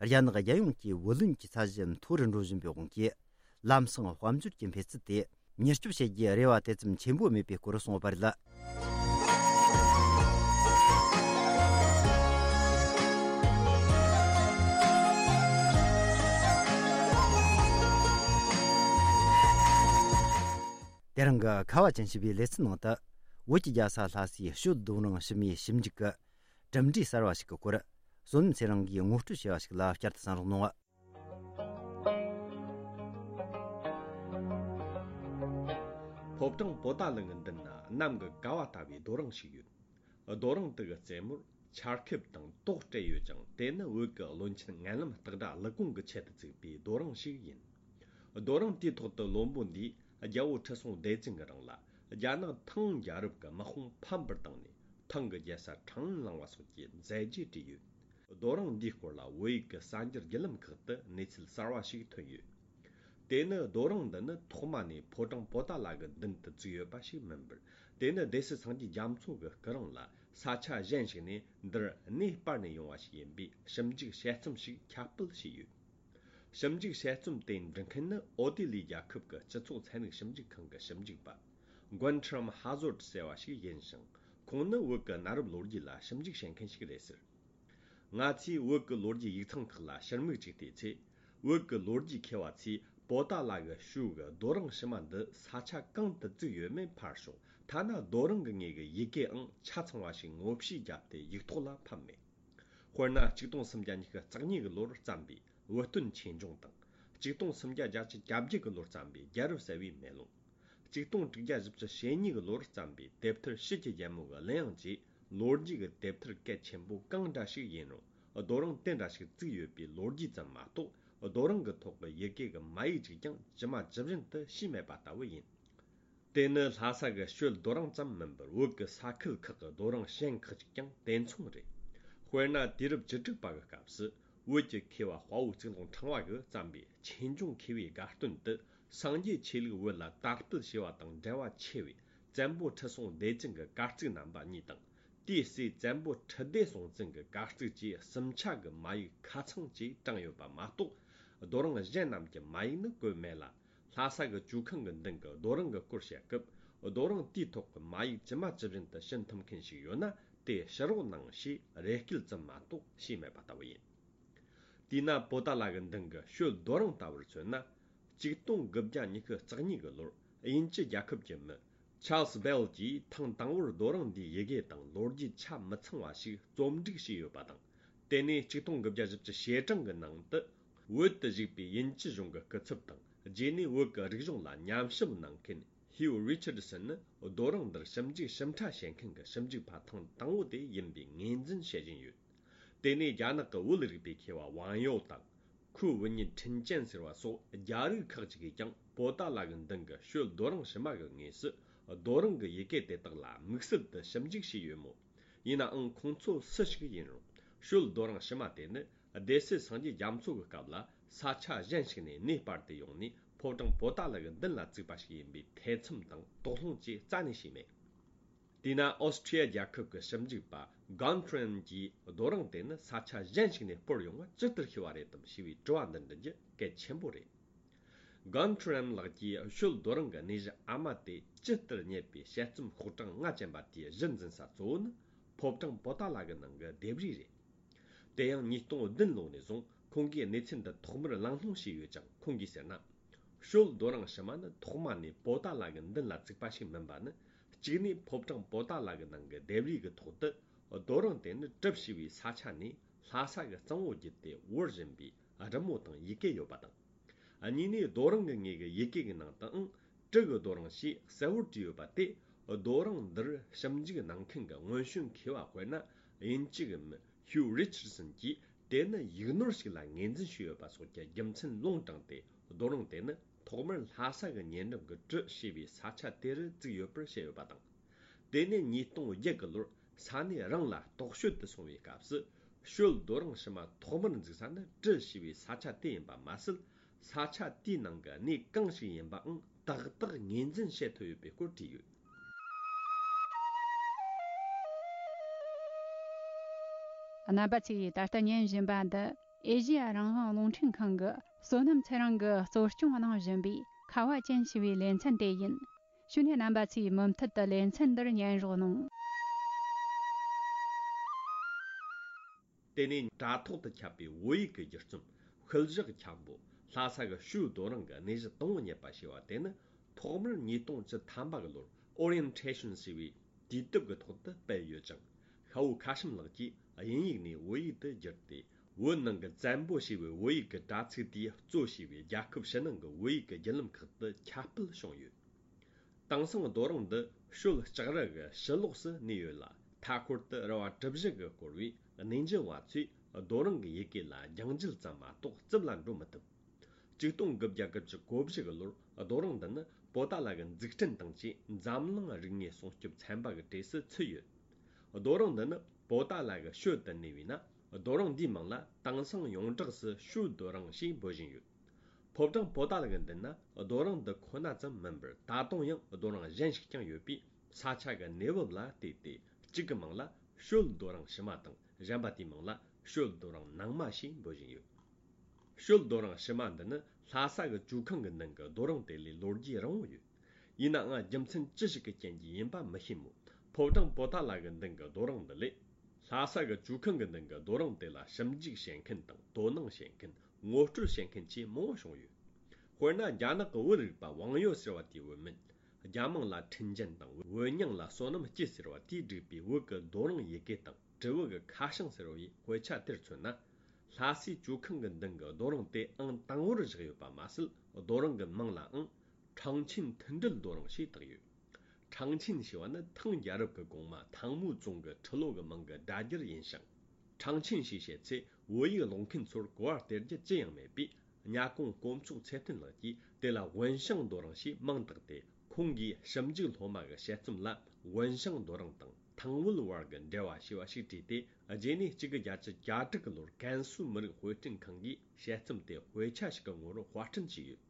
རྒྱ་ནག་རྒྱལ་ཡོངས་ཀྱི་བུ་ལོན་གྱི་ཚད་གཞི་མཐོ་རུ་འགྲོ་བཞིན་པའི་དབང་གིས། ལམ་སང་དཔལ་འབྱོར་གྱི་འཕེལ་ཚད་དེ་མྱུར་སྐྱོབ་བྱེད་རྒྱུའི་རེ་བ་དེ་ཙམ་ཆེན་པོ་མེད་པའི་སྐོར་གསུངས་ཡོད་པ་རེད། ཁྱེད་རང་གི་ཁ་བ་ཅན་ཞེས་པའི་ལེ་ཚན་ནང་དུ། བོད་ཀྱི་རྒྱལ་ས་ལྷ་སའི་ཞོལ་རྡོ་རིང་ཕྱི་མའི་ཞིབ་འཇུག་གི་གྲུབ་འབྲས་གསར་བ་ཞིག་གི་སྐོར། བསོད་ནམས་ཚེ་རིང་གིས་ངོ་སྤྲོད་བྱས་པ་ཞིག་ལ་བསྐྱར་དུ་གསན་རོགས་གནང་། ཕོ་བྲང་པོ་ཏཱ་ལ་གི་མདུན་ན་གནམ་གྱི་ཀ་བ་ལྟ་བུའི་རྡོ་རིང་ཞིག་ཡོད། རྡོ་རིང་དེ་གི་རྩེ་མོར་ཆར་ཁེབས་དང་ཏོག་སྤྲད་ཡོད་ཅིང་། དེ་ནི་བོད་ཀྱི་བློན་ཆེན་མངལ་ལམ་སྟག་སྒྲ་ཀླུ་ཀོང་གི་ཆེད་དུ་བཙུགས་པའི་རྡོ་རིང་ཞིག་ཡིན། རྡོ་རིང་དེའི་ཐོག་ཏུ་བློན་པོ་འདིས་རྒྱལ་པོ་ཁྲི་སྲོང་ལྡེ་བཙན་གྱི་རིང་ལ་རྒྱ་ནག་ཐང་རྒྱལ་རབས་ཀྱི་དམག་དཔུང་ཕམ་པར་བཏང་ནས། ཐང་གི་རྒྱལ་ས་ཁྲང་ཨན་བླངས་པ་སོགས་ཀྱི་མཛད་རྗེས་བྲིས་ཡོད། རྡོ་རིང་འདིའི་སྐོར་ལ་བོད་ཡིག་གི་གསར་འགྱུར་བརྒྱུད་ལམ་ཁག་ཏུ་གནས་ཚུལ་གསར་བ་ཞིག་ཐོན་ཡོད། དེ་ནི་རྡོ་རིང་འདི་ནི་ཐོག་མ་ནས་ཕོ་བྲང་པོ་ཏཱ་ལ་གི་མདུན་དུ་བཙུགས་ཡོད་པ་ཞིག་མིན་པར། དེ་ནི་སྡེ་སྲིད་སངས་རྒྱས་རྒྱ་མཚོ་གི་སྐུ་རིང་ལ་ས་ཆ་གཞན་ཞིག་ནས་འདིར་གནས་སྤར་ནས་ཡོང་བ་ཞིག་ཡིན་པའི་ཞིབ་འཇུག་དཔྱད་རྩོམ་ཞིག་ཁྱབ་སྤེལ་བྱས་ཡོད། ཞིབ་འཇུག་དཔྱད་རྩོམ་དེ་འབྲི་མཁན་ནི་ཨོ་སྟྲེ་ལི་ཡའི་རྒྱལ་ཁབ་ཀྱི་སྤྱི་ཚོགས་ཚན་རིག་ཞིབ་འཇུག་ཁང་གི་ཞིབ་འཇུག་པ། Guntram Hazzard ཟེར་བ་ཞིག་ཡིན་ཞིང་། ཁོང་ནི་བོད་ཀྱི་གནའ་རབས་ལོ་རྒྱུས་ལ་ཞིབ་འཇུག་བྱེད་མཁན་ཞིག་རེད་ཟེར། ང་ཚོས་བོད་ཀྱི་ལོ་རྒྱུས་ཡིག་ཚང་ཁག་ལ་ཕྱིར་མིག་ཅིག་བལྟས་ཚེ། བོད་ཀྱི་ལོ་རྒྱུས་མཁས་པ་ཚོས་པོ་ཏཱ་ལ་གི་ཞོལ་གྱི་རྡོ་རིང་ཕྱི་མ་འདི་ས་ཆ་གང་དུ་བཙུགས་ཡོད་མེད་ཕར་ཞོག་ཐ་ན་རྡོ་རིང་གི་ངོས་ཀྱི་ཡི་གེའང་ཆ་ཚང་བ་ཞིག་ངོ་ཕྱེ་བརྒྱབ་སྟེ་ཡིག་ཐོག་ལ་ཕབ་མེད། དཔེར་ན། ཆིག་སྟོང་སུམ་བརྒྱ་ཉི་ཤུ་རྩ་གཉིས་ཀྱི་ལོར་བརྩམས་པའི་བོད་སྟོན་ཆོས་འབྱུང་དང་། ཆིག་སྟོང་སུམ་བརྒྱ་བརྒྱད་ཅུ་གྱ་བརྒྱད་ཀྱི་ལོར་བརྩམས་པའི་རྒྱལ་རབས་གསལ་བའི་མེ་ལོང་། ཆིག་སྟོང་དྲུག་བརྒྱ་བཞི་བཅུ་ཞེ་གཉིས་ཀྱི་ལོར་བརྩམས་པའི་དེབ་ཐེར་ཕྱི་གྱི་རྒྱལ་མོ་གི་གླུ་དབྱངས་བཅས་ལོ་རྒྱུས་ཀྱི་དེབ་ཐེར་གལ་ཆེན་པོ་གང་འདྲ་ཞིག་ཡིན་རུང་། རྡོ་རིང་དེ་འདྲ་ཞིག་བཙུགས་ཡོད་པའི་ལོ་རྒྱུས་ཙམ་མ་གཏོགས། རྡོ་རིང་གི་ཐོག་གི་ཡི་གེ་གི་མ་ཡིག་ཅིག་ཀྱང་ཇི་མ་ཇི་བཞིན་དུ་ཤེས་མེད་པ་ལྟ་བུ་ཡིན། དེ་ནི་ལྷ་ས་གི་ཞོལ་རྡོ་རིང་ཙམ་མིན་པར། བོད་ཀྱི་ས་ཁུལ་ཁག་གི་རྡོ་རིང་གཞན་ཁག་ཅིག་ཀྱང་དེ་མཚུངས་རེད། དཔེར་ན། དུས་རབས་བཅུ་དྲུག་པ་གི་སྐབས་སུ། བོད་ཀྱི་མཁས་པ་དཔའ་བོ་གཙུག་ལག་ཕྲེང་བ་གིས་བརྩམས་པའི་ཆོས་འབྱུང་མཁས་པའི་དགའ་སྟོན་དུ། སངས་རྒྱས་ཆོས་ལུགས་བོད་ལ་དར་སྤེལ་བྱས་པ་དང་འབྲེལ་བ་ཆེ་བའི་བཙན་པོ་ཁྲི་སྲོང་ལྡེ་བཙན་གྱི་དཀར་གཙིགས་རྣམ་པ་གཉིས་དང་། དེའི་སྲས་བཙན་པོ་ཁྲི་ལྡེ་སྲོང་བཙན་གྱི་དཀར་གཙིགས་བཅས་གསུམ་ཆ་གི་མ་ཡིག་ཁ་ཚང་བཅས་དྲངས་ཡོད་པ་མ་གཏོགས། རྡོ་རིང་གཞན་རྣམས་ཀྱི་མ་ཡིག་ནི་བཀོད་མེད་ལ། ལྷ་ས་གི་ཇོ་ཁང་གི་མདུན་གྱི་རྡོ་རིང་གི་སྐོར་བཤད་སྐབས། རྡོ་རིང་དེའི་ཐོག་གི་མ་ཡིག་ཇི་མ་ཇི་བཞིན་དུ་ཤེས་ཐུབ་མཁན་ཞིག་ཡོད་ན། དེ་ཕྱི་རོགས་གནང་ཞེས་རེ་སྐུལ་ཙམ་མ་གཏོགས་ཤེས་མེད་པ་ལྟ་བུ་ཡིན། དེས་ན། པོ་ཏཱ་ལ་གི་མདུན་གྱི་ཞོལ་རྡོ་རིང་ལྟ་བུར་མཚོན་ན། ཆིག་སྟོང་དགུ་བརྒྱ་ཉི་ཤུ་རྩ་གཉིས་ཀྱི་ལོར་དབྱིན་ཇི་རྒྱལ་ཁབ་ཀྱི་མི། ཆཱལ་སི་བེལ་གྱིས་ཐེངས་དང་པོར་རྡོ་རིང་འདིའི་ཡི་གེ་དང་ལོ་རྒྱུས་ཆ་མི་ཚང་བ་ཞིག་རྩོམ་སྒྲིག་བྱས་ཡོད་པ་དང་། དེ་ནས་ཆིག་སྟོང་དགུ་བརྒྱ་བཞི་བཅུ་ཞེ་གྲངས་ཀྱི་ནང་དུ། བོད་དུ་བཞུགས་པའི་དབྱིན་ཇི་གཞུང་གི་སྐུ་ཚབ་དང་། རྗེས་ནས་བོད་ཀྱི་རིག་གཞུང་ལ་ཉམས་ཞིབ་གནང་མཁན་ཧིའུ་རི་ཆར་སན་ནི། རྡོ་རིང་འདིར་ཞིབ་འཇུག་ཞིབ་ཕྲ་བྱེད་མཁན་གྱི་ཞིབ་འཇུག་པ་ཐེངས་དང་པོ་དེ་ཡིན་པའི་ངོས་འཛིན་བྱེད་བཞིན་ཡོད། དེ་ནས་རྒྱ་ནག་གི་བོད་རིག་པའི་མཁས་པ་ཝང་ཡོ་དང་། ཁུའུ་ཝུན་ཉིན་ཁྲིན་ཅན་ཟེར་བ་སོགས་རྒྱ་རིགས་ཁག་ཅིག་གིས་ཀྱང་པོ་ཏཱ་ལ་གི་མདུན་གྱི་ཞོལ་རྡོ་རིང་ཕྱི་མ་གི་ངོས་སུ། རྡོ་རིང་གི་ཡི་གེ་དེ་དག་ལ་དམིགས་བསལ་དུ་ཞིབ་འཇུག་བྱས་ཡོད་མོད། ཡིན་ནའང་། ཁོང་ཚོ་སུ་ཞིག་ཡིན་རུང་། ཞོལ་རྡོ་རིང་ཕྱི་མ་དེ་ནི་སྡེ་སྲིད་སངས་རྒྱས་རྒྱ་མཚོ་གི་སྐབས་ལ་ས་ཆ་གཞན་ཞིག་ནས་གནས་སྤར་ཏེ་ཡོང་ནས། ཕོ་བྲང་པོ་ཏཱ་ལ་གི་མདུན་ལ་བཙུགས་པ་ཞིག་ཡིན་པའི་ཐེ་ཚོམ་དང་དོགས་སློང་བཅས་རྩ་ནས་བྱས་མེད། དེས་ན། ཨོ་སི་ཁྲི་ཡ་རྒྱལ་ཁབ་ཀྱི་ཞིབ་འཇུག་པ་གཱན་ཁྲེན་གྱིས། རྡོ་རིང་དེ་ནི་ས་ཆ་གཞན་ཞིག་ནས་སྤོར་ཡོང་བ་ཇི་ལྟར་ཤེས་པ་རེད་དམ་ཞེས་པའི་དྲི་བ་འདི་འདྲི་རྒྱུ་གལ་ཆེན་པོ་རེད། གཱན་ཁྲེན་ལགས་ཀྱིས་ཞོལ་རྡོ་རིང་གི་གནས་གཞི་ཨ་མ་དེ་ཇི་ལྟར་རྙེད་པའི་དཔྱད་རྩོམ་ཤོག་གྲངས་ལྔ་ཅན་པ་དེའི་གཞི་འཛིན་ས་གཙོ་བོ་ནི། ཕོ་བྲང་པོ་ཏཱ་ལ་གི་ནང་གི་ལྡེབས་རིས་རེད། དེ་ཡང་ཉིས་སྟོང་བདུན་ལོ་ནས་བཟུང་ཁོང་གིས་གནས་ཚུལ་འདི་ཐོག་མར་གླེང་སློང་བྱས་ཡོད་ཀྱང་། ཁོང་གིས་ཟེར་ན། ཞོལ་རྡོ་རིང་ཕྱི་མ་ནི་ཐོག་མ་ནས་པོ་ཏཱ་ལ་གི་མདུན་ལ་བཙུགས་པ་ཞིག་མིན་པ་ནི། གཅིག་ནས་ཕོ་བྲང་པོ་ཏཱ་ལ་གི་ནང་གི་ལྡེབས་རིས་ཀྱི་ཐོག་ཏུ། རྡོ་རིང་དེ་ནི་གྲུ་ཞེས་པའི་ས་ཆ་ནས་ལྷ་ས་གི་གཙང་བོ་བརྒྱུད་དེ་བོར་བཞིན་པའི་རི་མོ་དང་ཡི་གེ་ཡོད་པ་དང་། གཉིས་ནས། རྡོ་རིང་གི་ངོས་ཀྱི་ཡི་གེ་གི་ནང་དུའང་གྲུ་གི་རྡོ་རིང་ཞེས་གསལ་བོར་བྲིས་ཡོད་པ་དེ། རྡོ་རིང་འདིར་ཞིབ་འཇུག་གནང་མཁན་གྱི་སྔོན་བྱོན་མཁས་པ་དཔེར་ན། དབྱིན་ཇི་གི་མི་ཧིའུ་རི་ཆར་སན་གྱིས་དེ་ནི་ཡིག་ནོར་ཞིག་ལ་ངོས་འཛིན་བྱས་ཡོད་པ་སོགས་ཀྱི་རྒྱུ་མཚན་ལུང་དྲངས་ཏེ། རྡོ་རིང་དེ་ནི་ཐོག་མར་ལྷ་ས་གི་ཉེ་འགྲམ་གྱི་གྲུ་ཞེས་པའི་ས་ཆ་དེ་རུ་བཙུགས་ཡོད་པར་བཤད་ཡོད་པ་དང་། དེ་ནས་ཉིས་སྟོང་བརྒྱད་ཀྱི་ལོར་ས་གནས་རང་ལ་རྟོག་དཔྱོད་དུ་སོང་བའི་སྐབས་སུ། ཞོལ་རྡོ་རིང་ཕྱི་མ་ཐོག་མར་འཛུགས་ས་ནི་གྲུ་ཞེས་པའི་ས་ཆ་དེ་ཡིན་པ་མ་ཟད། ས་ཆ་དེའི་ནང་གི་གནས་གང་ཞིག་ཡིན་པའང་ཏག་ཏག་ངོས་འཛིན་བྱེད་ཐུབ་ཡོད་པའི་སྐོར་བྲིས་ཡོད། རྣམ་པ་ཚོས་ད་ལྟ་ཉན་བཞིན་པ་འདི་ཨེ་ཤེ་ཡ་རང་དབང་རླུང་འཕྲིན་ཁང་གིས་བསོད་ནམས་ཚེ་རིང་གིས་གཙོ་སྐྱོང་གནང་བཞིན་པའི་ཁ་བ་ཅན་ཞེས་པའི་ལེ་ཚན་དེ་ཡིན། བྱས་ནས་རྣམ་པ་ཚོས་མུ་མཐུད་དུ་ལེ་ཚན་འདིར་ཉན་རོགས་གནང་། དེ་ནས་དྲ་ཐོག་ཏུ་ཁྱབ་པའི་བོད་ཡིག་གི་བསྒྱུར་རྩོམ་ཤུལ་བཞག་འཁྱམ་པོ། ལྷ་ས་གི་ཞོལ་རྡོ་རིང་གི་གནས་གཞི་དང་པོ་རྙེད་པ་ཞེས་པ་དེ་ནི། ཐོག་མར་ཉིས་སྟོང་བཅུ་ཐམ་པ་གི་ལོར་Orientation ཞེས་པའི་དུས་དེབ་ཀྱི་ཐོག་ཏུ་སྤེལ་ཡོད་ཅིང་། ཤ་བོ་ཁ་ཤམ་ལགས་ཀྱིས་དབྱིན་ཡིག་ནས་བོད་ཡིག་ཏུ་བསྒྱུར་ཏེ། བོད་ནང་གི་བཙན་པོ་ཞེས་པའི་བོད་ཡིག་གི་དྲ་ཚིགས་དེས་གཙོ་བྱས་པའི་རྒྱལ་ཁབ་ཕྱི་ནང་གི་བོད་ཡིག་གི་བརྒྱུད་ལམ་ཁག་ཏུ་ཁྱབ་སྤེལ་བྱུང་ཡོད། དེང་སང་རྡོ་རིང་འདི་ཤོད་ལྕགས་རི་གི་ཕྱི་ལོགས་སུ་གནས་ཡོད་ལ། མཐའ་འཁོར་དུ་རི་བ་གྲུ་བཞི་གིས་བསྐོར་བས། གནས་མཇལ་བ་ཚོས་རྡོ་རིང་གི་ཡི་གེ་ལ་རྒྱང་འཇལ་ཙམ་མ་གཏོགས་རྩིབ་ལ་འགྲོ་མི་ཐུབ། ཆིག་སྟོང་དགུ་བརྒྱ་དགུ་བཅུ་གོ་བཞི་གི་ལོར་རྡོ་རིང་འདི་ནི་པོ་ཏཱ་ལ་གི་འཛུགས་སྐྲུན་དང་བཅས་འཛམ་གླིང་རིག་གནས་སྲུང་སྐྱོབ་ཚན་པ་གི་གྲས་སུ་ཚུད་ཡོད། རྡོ་རིང་འདི་ནི་པོ་ཏཱ་ལ་གི་ཤོད་དུ་གནས་པས་ན། རྡོ་རིང་འདིའི་མིང་ལ་དེང་སང་ཡོངས་གྲགས་སུ་ཤོད་རྡོ་རིང་ཞེས་འབོད་བཞིན་ཡོད། ཕོ་བྲང་པོ་ཏཱ་ལ་གི་མདུན་ན་རྡོ་རིང་འདི་ཁོ་ན་ཙམ་མིན་པར། ད་དུང་ཡང་རྡོ་རིང་གཞན་ཞིག་ཀྱང་ཡོད་པས། ས་ཆ་གི་གནས་བབ་ལ་བལྟས་ཏེ་གཅིག་གི་མིང་ལ་ཤོད་རྡོ་རིང་ཕྱི་མ་དང་། གཞན་པ་དེའི་མིང་ལ་ཤོད་རྡོ་རིང་ནང་མ་ཞེས་འབོད་བཞིན་ཡོད། ཤོད་རྡོ་རིང་ཕྱི་མ་འདི་ནི་ལྷ་ས་གི་ཇོ་ཁང་གི་མདུན་གྱི་རྡོ་རིང་དེ་ལས་ལོ་རྒྱུས་རིང་བོ་ཡོད། ཡིན་ནའང་རྒྱུ་མཚན་ཅི་ཞིག་གི་རྐྱེན་གྱིས་ཡིན་པ་མི་ཤེས་མོད། ཕོ་བྲང་པོ་ཏཱ་ལ་གི་མདུན་གྱི་རྡོ་རིང་འདི་ལས། ལྷ་ས་གི་ཇོ་ཁང་གི་མདུན་གྱི་རྡོ་རིང་དེ་ལ་ཞིབ་འཇུག་བྱེད་མཁན་དང་དོ་སྣང་བྱེད་མཁན། ངོ་སྤྲོད་བྱེད་མཁན་བཅས་མང་བོ་བྱུང་ཡོད། དཔེར་ན། རྒྱ་ནག་གི་བོད་རིག་པ་ཝང་ཡོ་ཟེར་བ་དེའི་བོད་མིས། རྒྱ་མིང་ལ་ཁྲིན་ཅན་དང་། བོད་མྱིང་ལ་བསོད་ནམས་སྐྱིད་ཟེར་བ་དེས་བསྒྲིགས་པའི་བོད་ཀྱི་རྡོ་རིང་ཡི་གེ་དང་། དྲིལ་བུ་གི་ཁ་བྱང་ཟེར་བའི་དཔེ་ཆ་དེར་མཚོན་ན། ལྷ་སའི་ཇོ་ཁང་གི་མདུན་གྱི་རྡོ་རིང་དེ་ཨང་དང་པོར་བཞག་ཡོད་པ་མ་ཟད། རྡོ་རིང་གི་མིང་ལའང་ཁྲང་ཆིན་མཐུན་སྒྲིལ་རྡོ་རིང་ཞེས་བཏགས་ཡོད། ཁྲང་ཆིན་ཞེས་པ་ནི་ཐང་རྒྱལ་རབས་ཀྱི་གོང་མ་ཐང་མུའུ་ཙུང་གི་ཁྲི་ལོ་གི་མིང་གི་སྒྲ་སྒྱུར་ཡིན་ཞིང་། ཁྲང་ཆིན་ཞེས་བཤད་ཚེ། བོད་ཡིག་ཀློག་མཁན་ཚོར་གོ་བ་སྟེར་རྒྱུ་ཅི་ཡང་མེད་པས། གཉའ་གོང་དཀོན་མཆོག་ཚེ་བརྟན་ལགས་ཀྱིས་དེ་ལ་ཝུན་ཤང་རྡོ་རིང་ཞེས་མིང་བཏགས་ཏེ། ཁོང་གིས་ཞིབ་འཇུག་སློབ་མ་གི་དཔྱད་རྩོམ་ལ། ཝུན་ཤང་རྡོ་རིང་དང་ཐང་བོད་བར་གྱི་འབྲེལ་བ་ཞེས་པ་ཞིག་བྲིས་ཏེ། རྗེས་ནས་གཅིག་དགུ་བརྒྱད་ཅུ་གྱ་དྲུག་གི་ལོར་ཀན་སུའུ་མི་རིགས་དཔེ་སྐྲུན་ཁང་གིས་དཔྱད་རྩོམ་དེ་དཔེ་ཆ་ཞིག་གི་ངོ་བོར་དཔར་སྐྲུན་བྱས་ཡོད།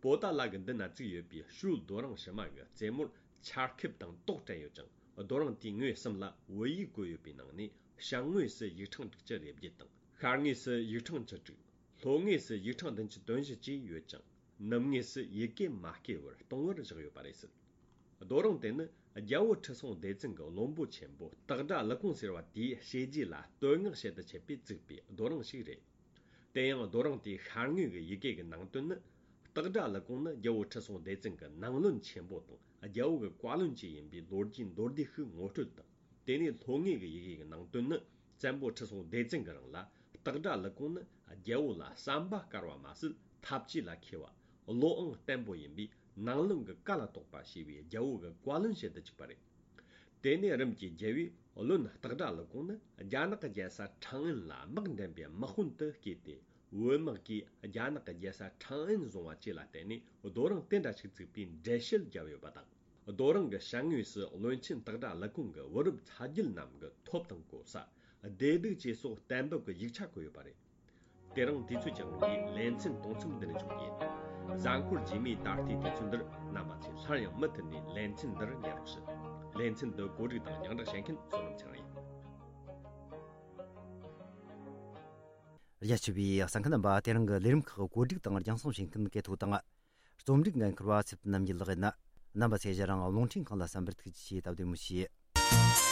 པོ་ཏཱ་ལ་གི་མདུན་ན་བཙུགས་ཡོད་པའི་ཤོད་རྡོ་རིང་ཕྱི་མ་གི་རྩེ་མོར་ཆར་ཁེབས་དང་ཏོག་བྲན་ཡོད་ཅིང་། རྡོ་རིང་དེའི་ངོས་གསུམ་ལ་བོད་ཡིག་བཀོད་ཡོད་པའི་ནང་ནས། ཞབས་ངོས་སུ་ཡིག་ཕྲེང་དྲུག་ཅུ་རེ་བརྒྱད་དང་། ཤར་ངོས་སུ་ཡིག་ཕྲེང་བཅུ་དྲུག། ལྷོ་ངོས་སུ་ཡིག་ཕྲེང་བདུན་ཅུ་དོན་བཞི་བཅས་ཡོད་ཅིང་། ནུབ་ངོས་སུ་ཡི་གེ་མ་བསྐྱེད་པར་སྟོང་བར་བཞག་ཡོད་པ་རེད་ཟེར། རྡོ་རིང་དེ་ནི་རྒྱལ་པོ་ཁྲི་སྲོང་ལྡེ་བཙན་གྱི་བློན་པོ་ཆེན་པོ་སྟག་སྒྲ་ཀླུ་ཀོང་ཟེར་བ་དེའི་བྱས་རྗེས་ལ་བསྟོད་བསྔགས་བྱེད་དུ་ཆེད་དུ་བཙུགས་པའི་རྡོ་རིང་ཞིག་རེད། དེ་ཡང་རྡོ་རིང་དེའི་ཤར་ངོས་ཀྱི་ཡི་གེ་གི་ནང་དོན་ནི། སྟག་སྒྲ་ཀླུ་ཀོང་ནི་རྒྱལ་པོ་ཁྲི་སྲོང་ལྡེ་བཙན་གྱི་ནང་བློན་ཆེན་པོ་དང་རྒྱལ་པོ་གི་བཀའ་བློན་བཅས་ཡིན་པའི་ལོ་རྒྱུས་མདོར་བསྡུས་ཤིག་ངོ་སྤྲོད་དང་། དེ་ནས་ལྷོ་ངོས་ཀྱི་ཡི་གེ་གི་ནང་དོན་ནི། བཙན་པོ་ཁྲི་སྲོང་ལྡེ་བཙན་གྱི་རིང་ལ་སྟག་སྒྲ་ཀླུ་ཀོང་ནི་རྒྱལ་པོ་ལ་བསམ་པ་དཀར་བ་མ་ཟད། ཐབས་ཇུས་ལ་མཁས་པ། བློའང་བརྟན་པོ་ཡིན་པས། ནང་བློན་གྱི་བཀའ་ལ་གཏོགས་པ་ཞེས་པའི་རྒྱལ་པོ་གི་བཀའ་བློན་བྱེད་དུ་བཅུག་པ་རེད། དེ་ནས་རིམ་གྱིས་རྒྱལ་པོས་བློན་སྟག་སྒྲ་ཀླུ་ཀོང་ནི་རྒྱ་ནག་གི་རྒྱལ་ས་ཁྲང་ཨན་ལ་དམག་འདྲེན་པའི་དམག་དཔོན་དུ་བསྐོས་ཏེ། བོད་དམག་གིས་རྒྱ་ནག་གི་རྒྱལ་ས་ཁྲང་ཨན་བཟུང་བ་བཅས་ལ་བརྟེན་ནས། རྡོ་རིང་དེ་འདྲ་ཞིག་བཙུགས་པའི་འགྲེལ་བཤད་བརྒྱབ་ཡོད་པ་དང་། རྡོ་རིང་གི་ཞབས་ངོས་སུ་བློན་ཆེན་སྟག་སྒྲ་ཀླུ་ཀོང་གི་བུ་རབས་ཚ་རྒྱུད་རྣམས་ཀྱི་ཐོབ་དང་གོ་ས། བདེ་སྡུག་བཅས་སོགས་གཏན་འབེབས་ཀྱི་ཡིག་ཆ་བཀོད་ཡོད་པ་རེད། དེ་རིང་དུས་ཚོད་ཀྱི་དབང་གིས་ལེ་ཚན་དུམ་མཚམས་འདི་ནས་འཇོག་རྒྱུ་ཡིན། གཟའ་འཁོར་རྗེས་མའི་ད་ལྟའི་དུས་ཚོད་འདིར་རྣམ་པ་ཚོས་སླར་ཡང་མུ་མཐུད་ནས་ལེ་ཚན་འདིར་ཉན་རོགས་ཞུ། ལེ་ཚན་འདི་གོ་སྒྲིག་དང་རྒྱང་བསྒྲགས་བྱེད་མཁན་བསོད་ནམས་ཚེ་རིང་ཡིན། རྒྱ་ཆེ་བའི་གསན་མཁན་རྣམ་པ། དེ་རིང་གི་ལས་རིམ་ཁག་གོ་སྒྲིག་དང་རྒྱང་སྲིང་བྱེད་མཁན་སྐལ་ཐོག་དང་། རྩོམ་སྒྲིག་འགན་འཁུར་བ་ཚེ་བརྟན་རྣམ་རྒྱལ་ལགས་ཡིན། རྣམ་པ་ཚོས་ང་རང་རླུང་འཕྲིན་ཁང་ལ་གསན་པར་ཐུགས་རྗེ་ཆེ། སྟབས་བདེ་མོ་བྱོས།